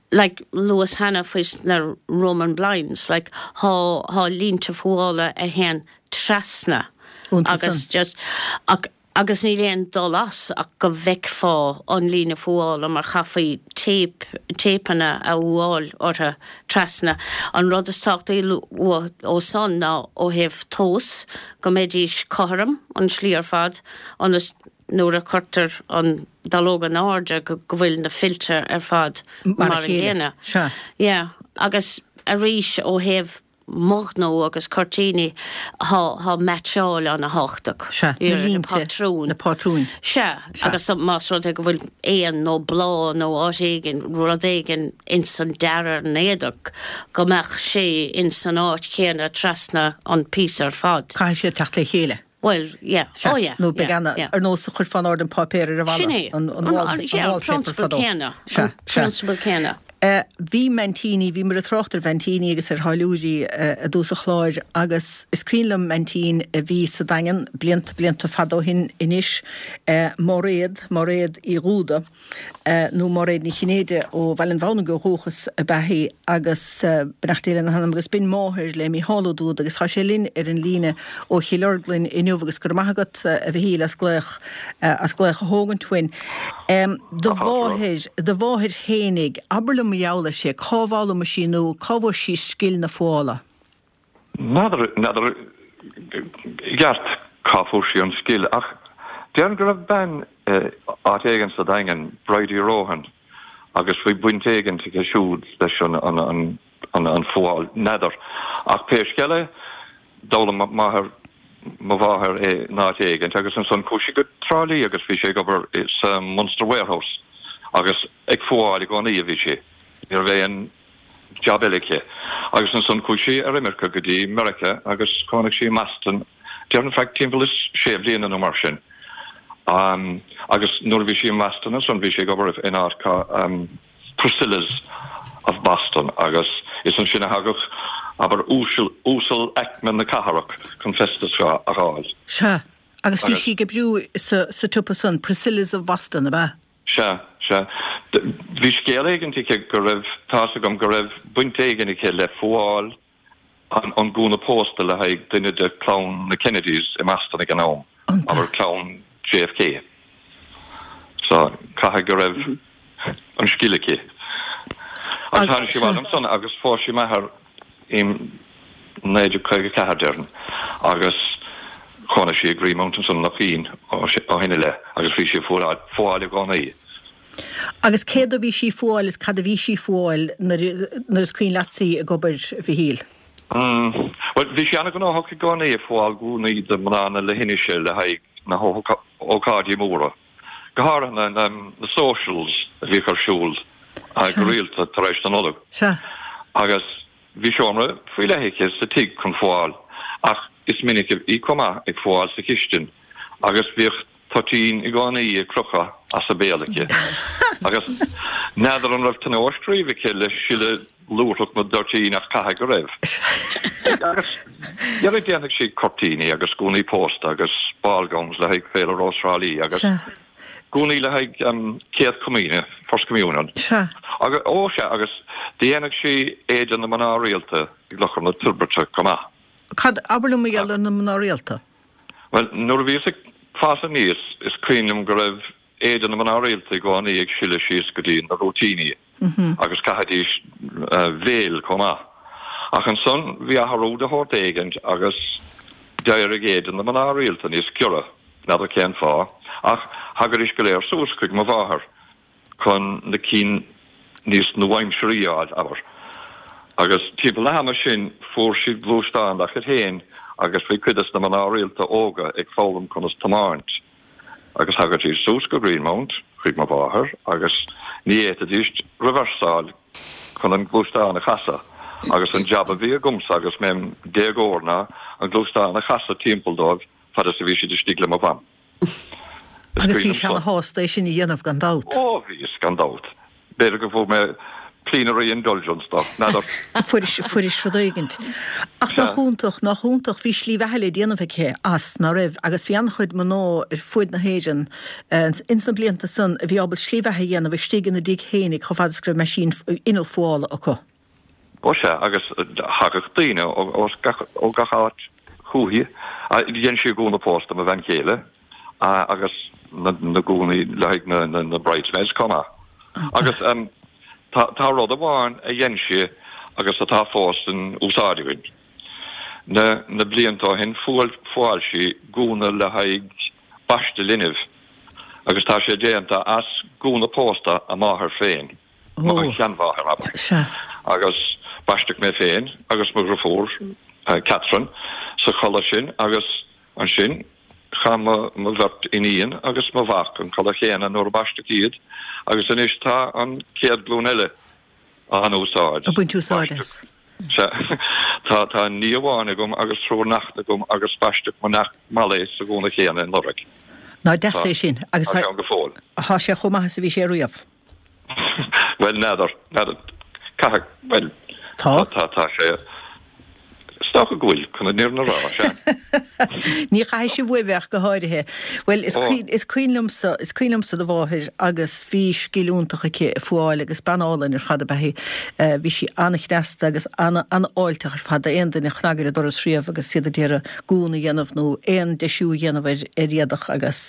Like, luas cheana faoi na Roman blinds, like, thá, thá línte fuála a théann trasna agus just, ach, Agus níl aon dul as ach go bhfeicfeá an líne fuála mar chaithfí téip, téipeanna a fhuáil orthu trasna. An rud is tábhachtaí ó san ná ó thaobh tomhas, go mbeidís cothrom an tslí ar fad ionas nuair a chuirtear an dallóg in airde go bhfuil na fillte ar fad mar a chéile. Yeah. Agus arís ó thaobh mo ghnó agus cuirtíní, thá, thá meaitseáil ana-thábhachtach. Sea, na línte, patrúin. Na pátrúin. Sea, agus más rud é go bhfuil éan nó bláth nó áit éigin, rud éigin ins an dearadh ar an éadach, go mbeadh sé ins an áit chéanna trasna an píosa ar fad. Caithfidh siad teacht le chéile. Bhuel, yeah. Sea, Oh yeah, nó beidh yeah, ana, yeah. ar nós a chuirfeá in airde an páipéar ar an bhalla, Sin é. an, an wall, An, yeah, an wallpaper prionsabal fadó. céanna. Sea, An sea. prionsabal céanna. Eh, bhí m'aintíní, bhíomar ag trácht ar mh'aintíní agus ar tháilliúirí eh, i dtús an chláir agus is cuimhin liom m'aintín a bhí sa Daingean blianta, blianta fada ó shin anois, eh, Máiréad, Máiréad Uí Dhúda. nó Máiréad Ní Chinnéide ó Bhaile an Bhamhnaigh ó dhúchas ab ea í agus beannacht Dé lena hanam agus b'in máthair le Mícheál Ó Dúda agus tá sé linn ar an líne ó Chill Orglan inniu agus go raibh maith agat a Mhichíl as glaoch as glaoch a thógaint uainn. Do mháthair, do mháthair fhéinig, abair liom mar gheall uirthi, cá bhfoghlaim sí nó cá bhfuair sí scil na fuála? N'fheadar, n'fheadar i gceart cá fuair sí an scil ach déarfainn go raibh bean. áit éigin sa Daingean, Bridie Rohan, agus bhí baint éigin aici siúd leis an an fuáil, n'fheadar. Ach pé scéal é, d'fhoghlaim máthair mo mháthair é in áit éigin agus ansan chuaigh sí go Trá Lí agus bhí sí ag obair sa Munster Warehouse agus ag fuáil i gcónaí a bhí sí. Ní raibh aon jab eile aici. Agus ansan chuaigh sí ar imirce go dtí Meiriceá agus chónaigh sí i mBoston, déarfainn feadh timpeall is sé bliana nó mar sin. Agus nuair a bhí sí i mBoston ansan bhí sí ag obair in áit Priscilla's of Boston agus is ansin a thagadh, abair, uasal, uasal-aicme na cathrach chun festas a fháil. Sea, agus bhí sí ag oibriú sa, sa tsiopa san, Priscilla's of Boston, ab ea? Sea, sea. Bhí scéal éigint aici go raibh, tá's agam go raibh baint éigin aici le fuáil an gúna pósta le haghaidh duine de chlann na Kennedys i mBoston ag an am, abair clann JFK. So, caithfidh go raibh an scil aici. Agus tháinig sí abhaile ansan agus phós sí m'athair i 1954, déarfainn, agus chónaigh sí i Greenmount ansan i Loch Fhionn ó shin i leith agus bhí sí ag fuáil i gcónaí. Agus céard a bhí sí ag fuáil is cad a bhí sí ag fuáil nuair is cuimhin leatsa í ag obair, a Mhichíl? Bhuel, bhí sí an-ghnóthach i gcónaí ag fuáil gúnaí do mhná na leithinise le haghaidh na hócáidí móra, go háirithe na socials a bhíodh ar siúl go rialta tar éis na Nollag. Agus bhí seomra faoi leith aici sa tigh chun fuáil ach is minic í chomh maith ag fuáil sa chistin agus bhíodh toitín i gcónaí ag crochadh as a béal aici. Agus n'fheadar an raibh tionóisc riamh aici le sileadh lúthrach na dtoitín ach caithfidh go raibh. Agus dhera dhéanfadh sí cuirtíní agus gúnaí pósta agus ball gowns le haghaidh Féile Rós Thrá Lí agus gúnaí le haghaidh Céad Comaoine, First Communion. Agus, ó sea, agus dhéanfadh sí éide na mná rialta i gClochar na Toirbhirte chomh maith. Cad, abair liom mar gheall ar na mná rialta. Bhuel, nuair a bhíos ag fás aníos, is cuimhin liom go raibh éide na mná rialta i gcónaí ag sileadh síos go dtí na rúitíní agus chaithidís veil chomh maith. Ach ansan bhí athrú de shórt éigint agus d'éirigh éide na mná rialta níos giorra, n'fheadar cén fáth, ach thagaidís go léir suas chuig mo mháthair. chun na cinn níos nuaaimsearaí a fháil, abair. Agus timpeall na hama sin fuair siad gluaisteán dá chuid féin agus bhí cuid des na mná rialta óga ag foghlaim conas tiomáint. Agus thagaidís suas go Greenmount chuig mo mháthair agus ní fhéadfaidís reversáil chun an gluaisteán a chasadh agus an jab a bhí agamsa agus mé im déagóir ná an gluaisteán a chasadh timpeall dóibh fad is a bhí siad istigh le mo mham. Agus bhís ana-shásta é sin a dhéanamh, gan dabht. Ó, bhíos, gan dabht. B'fhéidir go bhfuair mé plenary indulgence dó, n'fheadar. Fuairis, fuairis rud éigint. Ach nach iontach, nach iontach, bhí slí bheatha le déanamh aici as, ná raibh? Agus bhí an-chuid mná ar fuaid na hÉireann ins na blianta san a bhí ábalta slí bheatha a dhéanamh istigh ina dtigh fhéinig chomh fada is go raibh meaisín, inneall fuála acu. Ó sea, agus thagadh daoine ó gach áit chúithi. Dhein sí gúna pósta mo bhean chéile agus na gúnaí le haghaidh na bridesmaids chomh maith. Agus tá rud amháin a dhein sí agus atá fós in úsáid againn. Na blianta ó shin fuáil sí gúna le haghaidh baisteadh linbh agus tá sé déanta as gúna pósta a máthar féin. mo sheanmháthair, abair. Sea. Agus baisteadh mé féin agus mo dhriofúr, Catherine, sa chulaith sin agus ansin chaith mo bheirt iníon agus mo mhac an chulaith chéanna nuair a baisteadh iad agus anois tá an chéad ghlúin eile á n-úsáid. Ag baint úsáid as. Sea. Tá, tá nia amháin agam agus triúr neachtanna agam agus baisteadh mo neacht Molly sa ghúna chéanna anuraidh. Nach deas é sin. Agus tá sé ann go fóill. Tá sé chomh maith is a bhí sé riamh. Bhuel, n'fheadar, n'fheadar, caithfidh, bhuel, Tá? tá, tá sé, is dócha go bhfuil, chun an fhírinne a rá, sea. Ní chaithfidh sibh uaibh ach go háirithe. Bhuel, is Ó. cuimhin, is cuimhin liomsa, is cuimhin liomsa do mháthair agus bhí scil iontach aici ag fuáil agus bean álainn ar fad ab ea í. Bhí sí an-chneasta agus ana, an-fháilteach ar fad d'aon duine a chnag ar a doras riamh agus iad ag iarraidh gúna a dhéanamh nó aon deisiú a dhéanamh ar, ar éadach agus,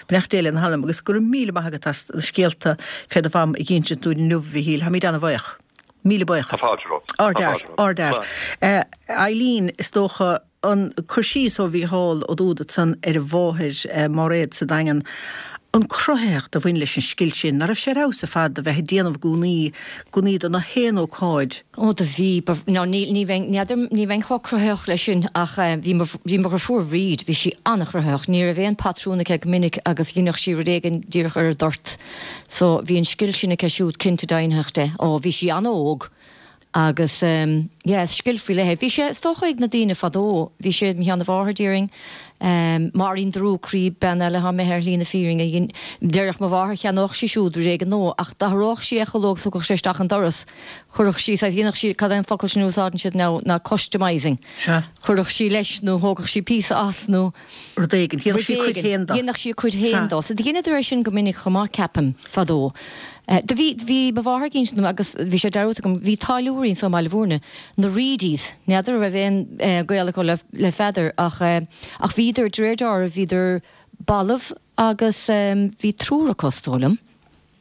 Beannacht Dé lena hanam agus go raibh míle maith agat as na scéalta fé do mham a dh'insint dúinn inniu, a Mhichíl. Táimid ana-bhaoch. Míle Tá buíochas. fáilte romhat. Tá Ardfhear. fáilte romhat. Ardfhear. Slán. Eileen, is dócha, an cur síos ó Mhícheál Ó Dúda ansan ar a mháthair, Máiréad sa Daingean. An cruthaitheacht a bhain leis an scil sin, ná raibh sé ar fheabhas ar fad a bheith ag déanamh gúnaí, gúnaí do na haon ócáid. Ó do bhí, ba, no ní, ní bheinn, n'fheadar, ní bheinn chomh cruthaitheach leis sin ach bhí mo, bhí mo dheirfiúr Bhríd, bhí sí an-chruthaitheach, ní raibh aon patrún aici go minic agus dheineadh sí rud éigin díreach ar an dtoirt. So bhí an scil sin aici siúd cinnte deimhnitheach de. Ó bhí sí an-óg Agus yeah, is scil faoi leith é. Bhí sé, is dócha, ag na daoine fadó. Bhí sé ag mo sheanamháthair, déarfainn. Máirín Drúcraí, bean eile atá imithe ar shlí na fírinne, a dhein, déarfadh mo mháthair, cheannódh sí siúd rud éigin nua, ach d'athródh sí é chuile uair agus thiocfadh sé isteach an doras. Chuirfeadh sí, saghas, dhéanfadh sí, cad é an focal sin a úsáideann siad now, ná customising. Sea. Chuirfeadh sí leis nó thógfadh sí píosa as nó. Rud éigin. Dhéanfadh sí a cuid féin dó. Dhéanfadh sí a cuid féin dó. So dheineadar é sin go minic chomh maith, ceapaim, fadó. Do bhí, bhí mo mháthair ag insint dom agus bhí sé dearúdta agam, bhí táilliúirí anso i mBaile Bhúirne, na Reidies, n'fheadar an raibh aon gaol acu le, le Pheadar ach, ach bhíodar, de réir dealraimh, bhíodar balbh agus bhí triúr acu, is dóigh liom.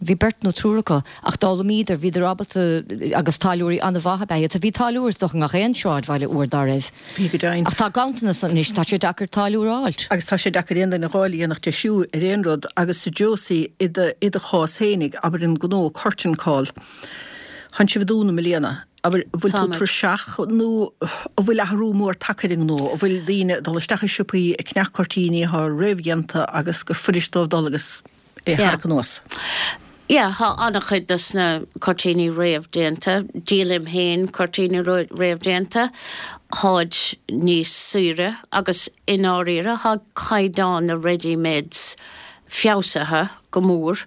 Bhí beirt nó triúr acu, ach d'fhoghlaimíodar, bhíodar ábalta, agus táilliúirí an-mhaith ab ea iad. So bhí táilliúir is dócha i ngach aon sráidbhaile uair dá raibh. Bhí go deimhin. Ach tá ganntanas anois, tá sé deacair táilliúir a fháilt. Agus tá sé deacair aon duine a dh'fháil a dhéanfadh deisiú ar aon rud. Agus a Josie, i do, i do chás fhéinig, abair an gnó Curtain Call, tánn sibh ag dúnadh i mbliana. Abair, an bhfuil tú tuirseach nó an bhfuil athrú mór tagtha ar an ngnó? An bhfuil daoine ag dul isteach i siopaí ag ceannach cuirtíní atá réamhdhéanta agus gur fuirist dóibh dul agus é a tharrac anuas. Yeah, tá an-chuid dos na cuirtíní réamhdéanta. Díolaim féin cuirtíní réamhdéanta. Táid níos saoire agus i ndáiríre tá caighdeán na ready-mades feabhsaithe go mór.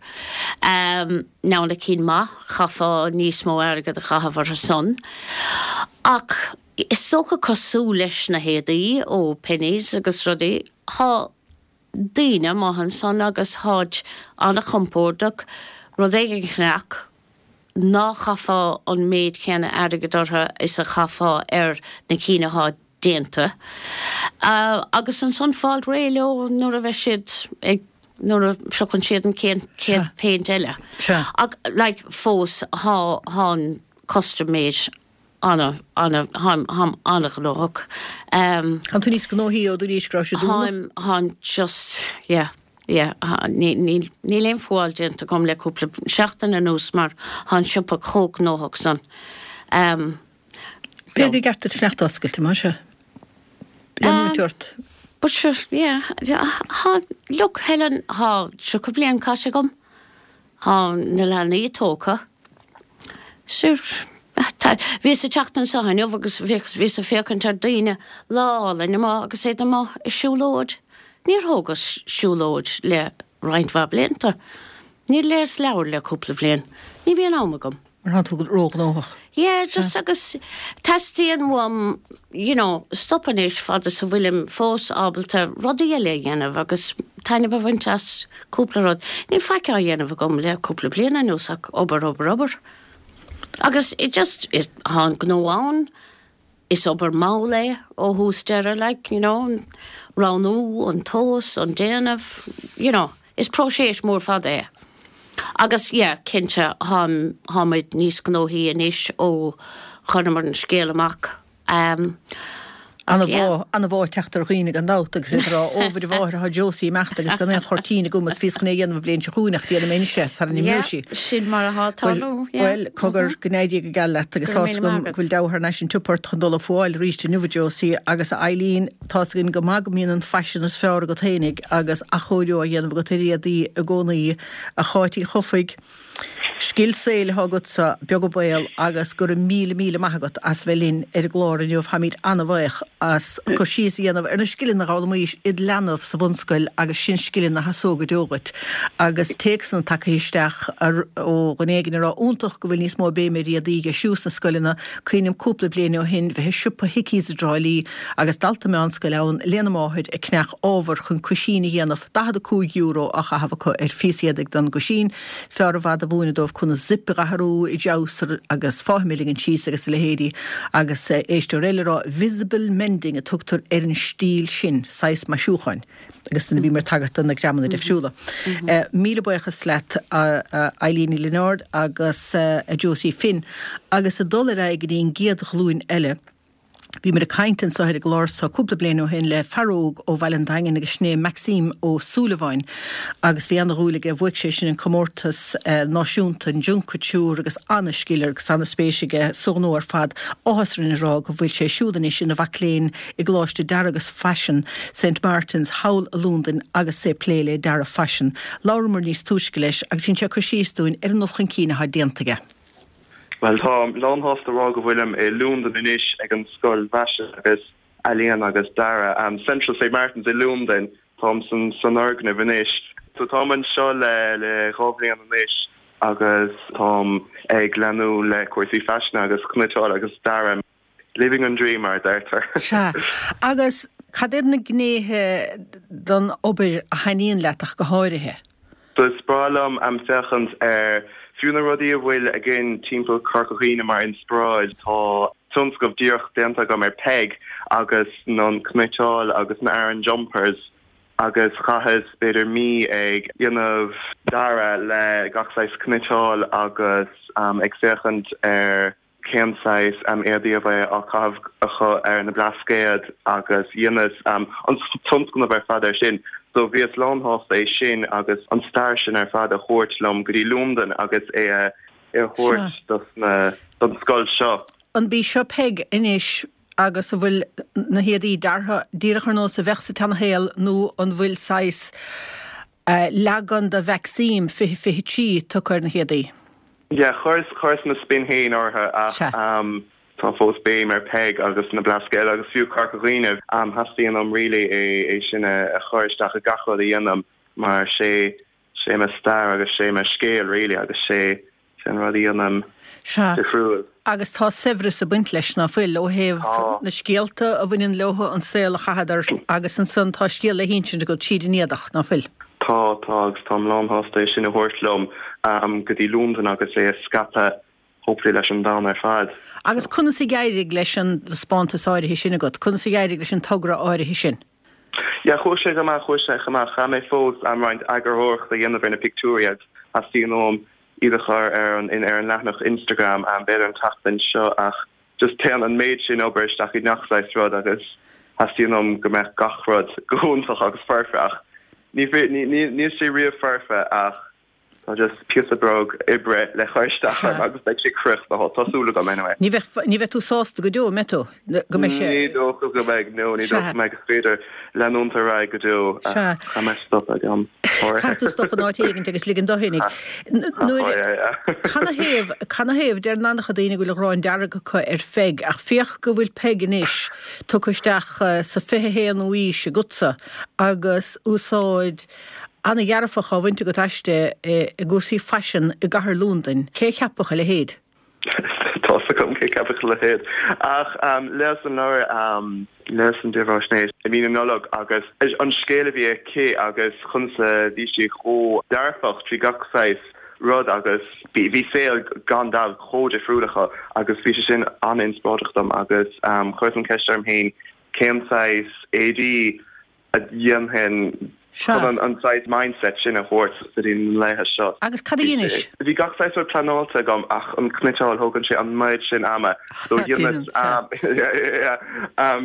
Now na cinn maith, chaithfeá níos mó airgead a chaitheamh orthu san. Ach is dócha cosúil leis na héadaí ó Penneys agus rudaí, tá daoine amuigh ansan agus tháid ana-chompordach, rud éigin a cheannach ná chaithfeá an méid céanna airgid orthu is a chaithfeá ar na cinn athá déanta. Agus ansan fáil réidh leo nuair a bheidh siad ag, nuair a phriocann siad an chéad phéint eile. Ach like fós thá, thá an custom made ana, ana, tháim, tháim ana-ghnóthach. Tá tú níos gnóthaí ó dúraís go raibh sé dúnadh? Tháim, tháim just, yeah, yeah, ní, ní, níl aon fuáil déanta agam le cúpla seachtain anuas mar tá an siopa chomh gnóthach san. B'fhéidir gur ceart duit fanacht oscailte, más ea? Leanúint ort. But sure, yeah, tá, look, Helen, tá 30 bliain caite agam. Tá na leanaí tógtha. Sure, tá, bhíos ag teacht anseo inniu agus bhíos ag féachaint ar daoine lá álainn amuigh agus iad amuigh ag siúlóid. Níor thógas siúlóid le roinnt mhaith blianta. Níor léas leabhar le cúpla bhliain. Ní bhíonn am agam. Mar tá tú róghnóthach. Yeah, just agus teastaíonn uaim, you know, stop anois fad is a bhfuilim fós ábalta rudaí eile a dhéanamh agus taitneamh a bhaint as cúpla rud. Níl faic á dhéanamh agam le cúpla bliain anuas ach obair, obair, obair. Agus it just, is, tá an gnó ann, Is obair mhall é ó thús deireadh, like, you know, an roghnú, an tomhas, an déanamh, you know, is próiseas mór fada é. Agus yeah, cinnte, táim, táimid níos gnóthaí anois ó chuireamar an scéal amach. Um, Ana-mhaith, ana-mhaith teacht ar dhaoine gan dabht agus iad ag rá, Ó, mhuire mháthair, tá Josie imeachta agus gan aon chuirtín agam agus bhíos chun é a dhéanamh an bhliain seo chugainn ach déanfaidh mé anois é sara n-imeoidh sí. Yeah, sin mar atá ag tarlú, yeah. Bhuel, cogar, go n-éirí go geal leat agus tá's agam go bhfuil deabhadh thar n-ais an tsiopa ort chun dul ag fuáil arís inniu, a Josie, agus a Eileen, tá's againn go maith go mbíonn an faisean is fearr agat fhéinig agus athchóiriú á dhéanamh agat ar éadaí i gcónaí, a Cháit Uí Chofaigh. Scil saoil atá agatsa, beag an baol, agus go raibh míle míle maith agat as bheith linn ar an gclár inniu. Táimid an-bhaoch as cur síos a dhéanamh ar na scileanna a dh'fhoghlaimís id leanbh sa bhunscoil agus sin scileanna a sheasóidh go deo dhuit. Agus téacsanna tagtha isteach ó dhuine éigin ag rá iontach go bhfuil níos mó béime ar éadaí a dheisiú sna scoileanna. Cuimhním cúpla bliain ó shin bheith i siopa Hickeys i dTrá Lí agus dalta meánscoile ann lena máthair ag ceannach ábhar chun cuisín a dhéanamh, €45 á chaitheamh acu ar phíosa éadaigh don gcuisín. Fearr i bhfad a mhúineadh dóibh conas zip a dh'athrú i dtreabhsar agus fáithim a ligean síos agus a leithéidí. Agus éisteoir eile ag rá 'visible mending' a tugtar ar an stíl sin, saghas maisiúcháin. Agus nuair a bhíomar ag tagairt do na greamanna deifriúla. Míle buíochas leat a Eileen Ní Lionáird agus a Josie Finn. Agus ag dul ar aghaidh go dtí an gcéad ghlúin eile. Bhíomar ag caint anso ar an gclár so cúpla bliain ó shin le fear óg ó Bhaile an Daingin agus sin é Maxime Ó Súilleabháin agus bhí ana-dhúil aige, bhuaigh sé sin an comórtas náisiúnta, an Junk Kouture agus ana-scil agus ana-spéis aige sa ghnó ar fad. Áthas orainn a rá go bhfuil sé siúd anois ina mhac léinn i gColáiste Dearaidh agus Faisin Saint Martin's thall i Londain agus é ag plé le dearadh faisin. Labhramar níos túisce leis agus dhein sé cur síos dúinn ar an dul chun cinn atá déanta aige. Bhuel, táim lán-shásta a rá go bhfuilim i Londain anois ag an Scoil Fhaisin agus Ealaíon agus Dearadh, Central Saint Martins i Londain. Táim san fhoirgneamh anois. So táim anseo le le 2 bhliain anois agus táim ag leanúint le cúrsaí faisin agus cniotáil agus dearadh. Living an dream, mar a deirtear. Sea. Agus cad iad na gnéithe den obair a thaitníonn leat ach go háirithe? So is breá liom féachaint ar fiú na rudaí a bhfuil againn timpeall Corca Dhuibhne mar inspioráid. Tá tionscnamh díreach déanta agam ar Peig agus an cniotáil agus na Aran jumpers agus chaitheas b'fhéidir mí ag déanamh dearadh le gach saghas cniotáil agus ag féachaint ar cén saghas éadaí a bheadh á caitheamh acu ar na Blascaod agus dheineas an tionscnamh ar fad ar sin. So bhíos lán-shásta é sin agus an stair sin ar fad a thabhairt liom go dtí Londain agus é a thabhairt dos na, don scoil seo. An bí seo Peig anois agus an bhfuil na héadaí deartha díreach ar nós a bheadh sa tseanashaol nó an bhfuil saghas leagan de Mhaxime 2023 tugtha ar na héadaí. Yeah, chuireas, chuireas mo spin féin orthu ach tá fós béim ar Peig agus na Blascaod agus fiú Corca Dhuibhne. Theastaíonn uaim really é sin a chur isteach i gach rud a dhéanaim mar sé, sé mo stair agus sé mo scéal really agus sé, Sé an rud a dhéanaim Sea. difriúil. Agus tá saibhreas ag baint leis, ná fuil, ó thaobh Tá. na scéalta a bhaineann leo, an saol a chaitheadar, agus ansan tá scéal le hinsint agat tríd an éadach, ná fuil? Tá, tá, agus táim lán-shásta é sin a thabhairt liom go dtí Londain agus é a scaipeadh, hopefully, leis an domhan ar fad. Agus conas a d'éirigh leis an dtaispeántas áirithe sin agat? Conas a d'éirigh leis an togra áirithe sin? Yeah, chuaigh sé go maith, chuaigh sé go maith. Chaith mé fós roinnt eagarthóireachta a dhéanamh ar na pictiúirí agus theastaíonn uaim iad a chur ar an ar an leathanach Instagram b'fhéidir an tseachtain seo ach just téann an méid sin obair isteach i ngach saghas rud agus theastaíonn uaim go mbeadh gach rud go hiontach agus foirfe ach ní níl sé riamh foirfe ach Tá just píosa beag oibre le cur isteach orm agus beidh sé críochnaithe, tá súil agam anyway. Ní bheidh, ní bheidh tú sásta go deo, an mbeidh tú? Go mbeidh sé. Ní dócha go mbeidh, no, ní dócha go mbeidh. Is féidir leanúint ar aghaidh go deo ach Sea. caithfidh mé stop ag am áirithe. Caithfidh tú stop in áit éigint agus ligean do fhéinig. Nuair, canathaobh, canathaobh, deireann an-chuid daoine go bhfuil an ghráin dearg acu ar Pheig ach féach go bhfuil Peig anois tugtha isteach sa 21ú aois agatsa agus úsáid Ana-dhearfach á bhaint agat aisti i gcúrsaí faisin i gcathair Londain. Cé a cheapfadh a leithéid? Tá's agam cé cheapfadh a leithéid. Ach léas an leabhar, léas an dírbheathaisnéis i mí na Nollag agus an scéal a bhí aici agus conas a bhí sí chomh dearfach trí gach saghas rud agus bhí saol gan dabht chomh difriúil acu agus bhí sé sin an-inspioráideach dom agus chuireas an ceist orm féin cén saghas éadaí a dhéanfainn chun an saghas mindset sin a thabhairt go dtí na laetha seo. Agus cad a dheinis? Bhí gach saghas rud pleanáilte agam ach an cniotáil, thógann sé an méid sin ama so dheineas,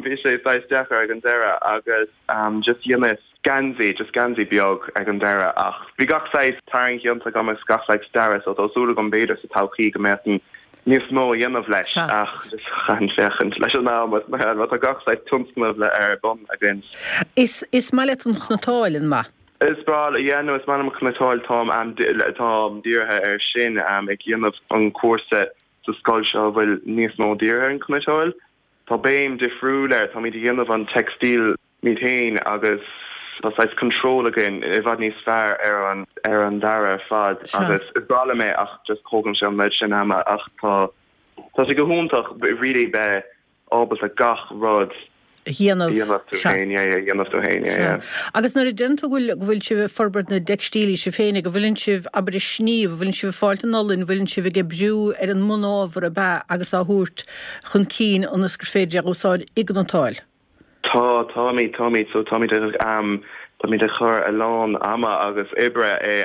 bhí sé saghas deacair ag an deireadh agus just dheineas geansaí, just geansaí beag ag an deireadh ach bhí gach saghas tarraingt déanta agam agus gach saghas dearadh so tá súil agam b'fhéidir sa todhchaí go mbeadh níos mó a dhéanamh leis ach just caithfidh féachaint leis an am agus mar mar tá gach saghas tionscnamh le ar bun againn. Is is maith leat an chniotáil, an maith? Is breá liom, yeah no is maith liom an chniotáil táim táim dírithe ar sin ag dhéanamh an cúrsa sa scoil seo a bhfuil níos mó dírithe ar an chniotáil. Tá béim difriúil air, táimid ag dhéanamh an textile muid féin agus tá saghas control againn i bhfad níos fearr ar an ar an dearadh ar fad agus is breá liom é ach just thógann sé an méid sin ama ach tá tá sé go hiontach really bheith ábalta gach rud a dhéanamh a dhéanamh tú féin yeah yeah a dhéanamh tú féin yeah yeah. Agus nuair a deireann tú go bhfuil go bhfuil sibh ag forbairt na dteicstílí sibh féin go bhfuileann sibh abair ag sníomh, bhfuileann sibh ag fáilt an olann, bhfuileann sibh ag oibriú ar an mbunábhar ab ea agus á thabhairt chun cinn ionas gur féidir é a úsáid i gcniotáil? Tá, táimid, táimid, so táimid ag, táimid ag cur a lán ama agus oibre i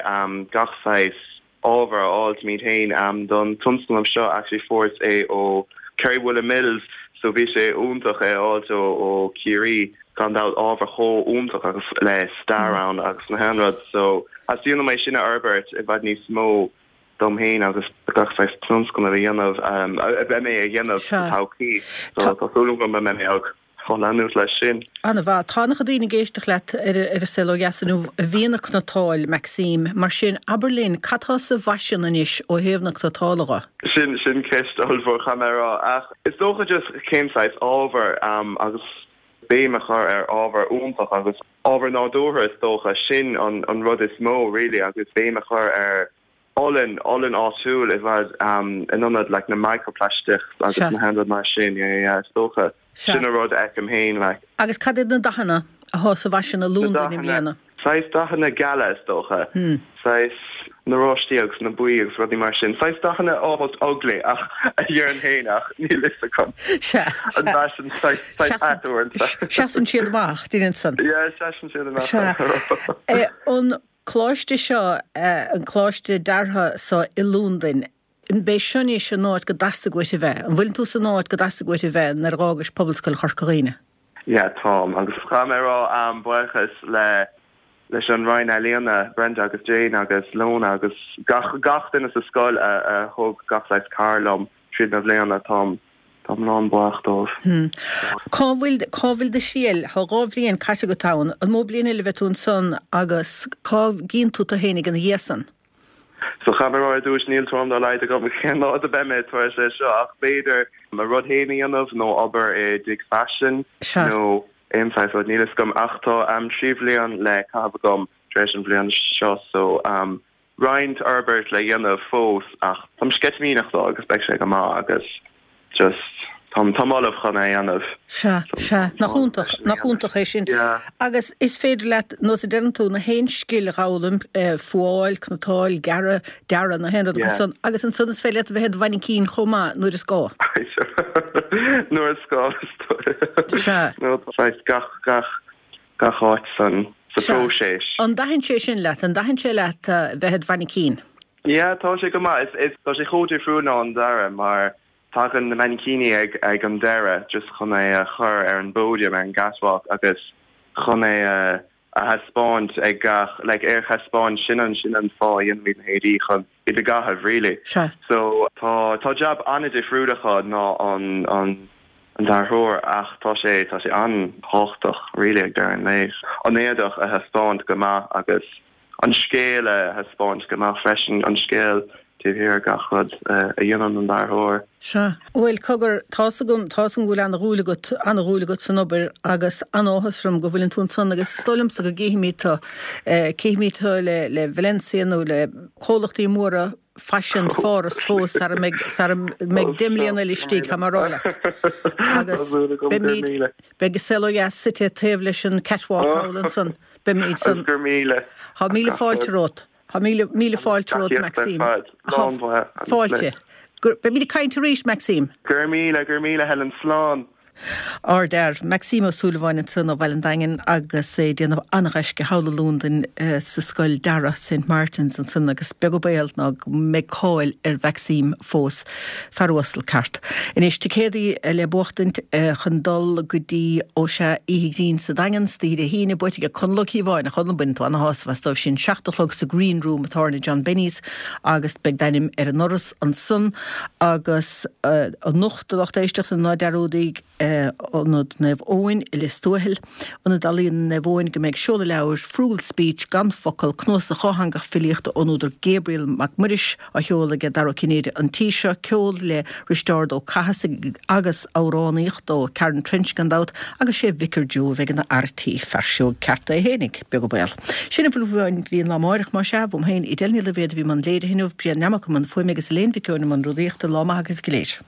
gach saghas ábhar a fháil muid féin don tionscnamh seo. Actually fuaireas é ó Kerry Woolen Mills. So bhí sé iontach é a fháilt ó ó Ciarraí, gan dabht, ábhar chomh iontach agus le stair ann agus na haon rud. So theastaíonn uaim é sin a fhorbairt i bhfad níos mó dom féin agus gach saghas tionscnamh a dhéanamh, a bheidh mé a dhéanamh sa todhchaí. So tá súil agam go mbeidh mé ag leanúint leis sin. An-mhaith. Tá an-chuid daoine ag éisteacht leat ar An Saol Ó Dheas inniu a bhíonn ag cniotáil, Maxime. Mar sin, abair linn, cad tá sa bhfaisean anois ó thaobh na cniotála dho? Sin, sin ceist ollmhór, caithfidh mé a rá. Ach is dócha just cén saghas ábhar agus béim a chur ar ábhar iontach agus ábhar nádúrtha is dócha, sin an, an rud is mó really agus béim a chur ar olann, olann áitiúil i bhfad in ionad like na microplastics agus na haon rud mar sin, yeah, yeah, is dócha. Sin an rud a fheicim féin like. Agus cad iad na dathanna athá sa bhfaisean i Londain i mbliana? Saghas dathanna geala is dócha. Saghas na oráistí agus na buí agus rudaí mar sin. Saghas dathanna almost ugly ach a déarfainn féin ach níl fhios agam. Sea, sea. An bhfaisean saghas saghas ait uaireanta. Seasann siad amach, deireann san. Yeah, seasann siad amach. Sea. An coláiste seo, an coláiste deartha so i Londain, an b'é seo anois an áit go dteastaigh uait a bheith? An bhfuileann tú san áit go dteastaigh uait a bheith nuair a dh'fhágais Pobalscoil Chorca Dhuibhne? Yeah, táim. Agus caithfidh mé a rá, buíochas le leis an Roinn Ealaíona, Brenda agus Jane agus Lona agus gach gach duine sa scoil a a thug gach saghas cabhair liom tríd na bhliana. Táim táim lán buíoch dóibh. Hmm. Cá bhfuil cá bhfuil do thriall? Tá 2 bhliain caite agat ann. An mó bliain eile a bheidh tú ansan agus cá gcíonn tú tú fhéinig ina dhiaidh san? So caithfidh mé a rá ar dtús, níl tuairim dá laghad agam cén áit a beidh mé tar éis é seo ach b'fhéidir mo rud féin a dhéanamh nó obair i dtigh faisin nó aon saghas rud, níl fhios agam ach tá 3 bhliain le caitheamh agam tar éis an bhliain seo so roinnt fhorbairt le dhéanamh fós ach táim sceitimíneach dó agus beidh sé go maith agus just táim táim ullamh chun é a dhéanamh. Sea, sea. Nach iontach, nach iontach é sin. Yeah. Agus is féidir leat, nós a deireann tú, na haon scil a dh'fhoghlaim, fuáil, cniotáil, gearradh, dearadh, na haon rud acu san, agus ansan is féidir leat a bheith i do mhainicín chomh maith nuair is gá. Nuair is gá, is dóigh. Sea. Nó saghas gach, gach, gach áit san, sa phróiseas. An dtaitin sé sin leat? An dtaitin sé leat bheith i do mhainicín? Yeah, tá sé go maith. Is, is, tá sé chomh difriúil ná an dearadh mar tagann na mainicíní ag, ag an deireadh just chun é a chur ar an bpódium, ar an gcatwalk agus chun é a, a thaispeáint ag gach, like é a thaispeáint, sin an, sin an fáth a dhéanaimid na héadaí chun iad a gcaitheamh really. Sea. So tá, tá jab an-difriúil acu ná an, an, an dearthóir ach tá sé, tá sé an-tábhachtach really ag deireadh an lae. An éadach a thaispeáint go maith agus. an scéal a thaispeáint go maith freisin, an scéal taobh thiar de gach rud a dhéanann an dearthóir. Sea. Bhuel, cogar, tá's agam, tá's agam go bhfuil ana-dhúil agat, ana-dhúil agat san obair agus an-áthas orm go bhfuileann tú ansan agus is dóigh liomsa go gcífimid tú, cífimid tú le, le Balenciaga nó le comhlachtaí móra faisin Pháras fós sara mbeidh, sara mbeidh 10 mbliana eile istigh, tá mé a rá leat. Agus beimid, beidh An Saol Ó Dheas suite taobh leis an catwalk thall ansan. Beimid san. Agus gur míle. Tá míle fáilte romhat. Tá míle, míle fáilte romhat, Maxime. Tá fáilte. Beimid ag caint arís, Maxime. Go raibh míle, go raibh míle, Helen. Slán. Ardfhear. Maxime Ó Súilleabháin ansan ó Bhaile an Daingin agus é ag déanamh an-ghaisce thall i Londain sa scoil dearaidh St Martin's ansan agus beag an baol ná go mbeidh cáil ar Mhaxime fós. Fear uasal ceart. Anois, ticéadaí le buachtaint chun dul go dtí, ó sea, Oíche Ghrinn sa Daingean, istoíche Dé hAoine, buaite ag Conall Ó Cíobháin, a Chonaill, baineann tú ana-shásamh as dóibh sin. 7 a chlog sa Green Room i dtábhairne John Benny's agus beidh d'ainm ar an ndoras ansan agus anocht, a lucht éisteachta, ná dearúdaigí, Ionad Naomh Eoin i Lios Tuathail, Ionad Ealaíon Naomh Eoin go mbeidh seoladh leabhair, Frugal Speech, Gan Focal, cnuasach dhátheangach filíochta ón údar Gabriel Mac Muiris á sheoladh aige Dara Ó Cinnéide an tí seo, ceol le Risteárd Ó Cathasaigh agus amhránaíocht ó Karen Trench gan dabht agus sé Vicar Joe a bheidh ina fhear tí, fear sióg ceart é fhéinig, beag an baol. Sin a bhfuil uainn go dtí an lá amáireach, más ea, uaim féin, Edel Ní Loibhéad a bhí i mbun léirithe inniu, Brian Nammock i mbun fuaime agus Elaine Mhic Eoin i mbun rúnaíochta, lá maith agaibh go léir.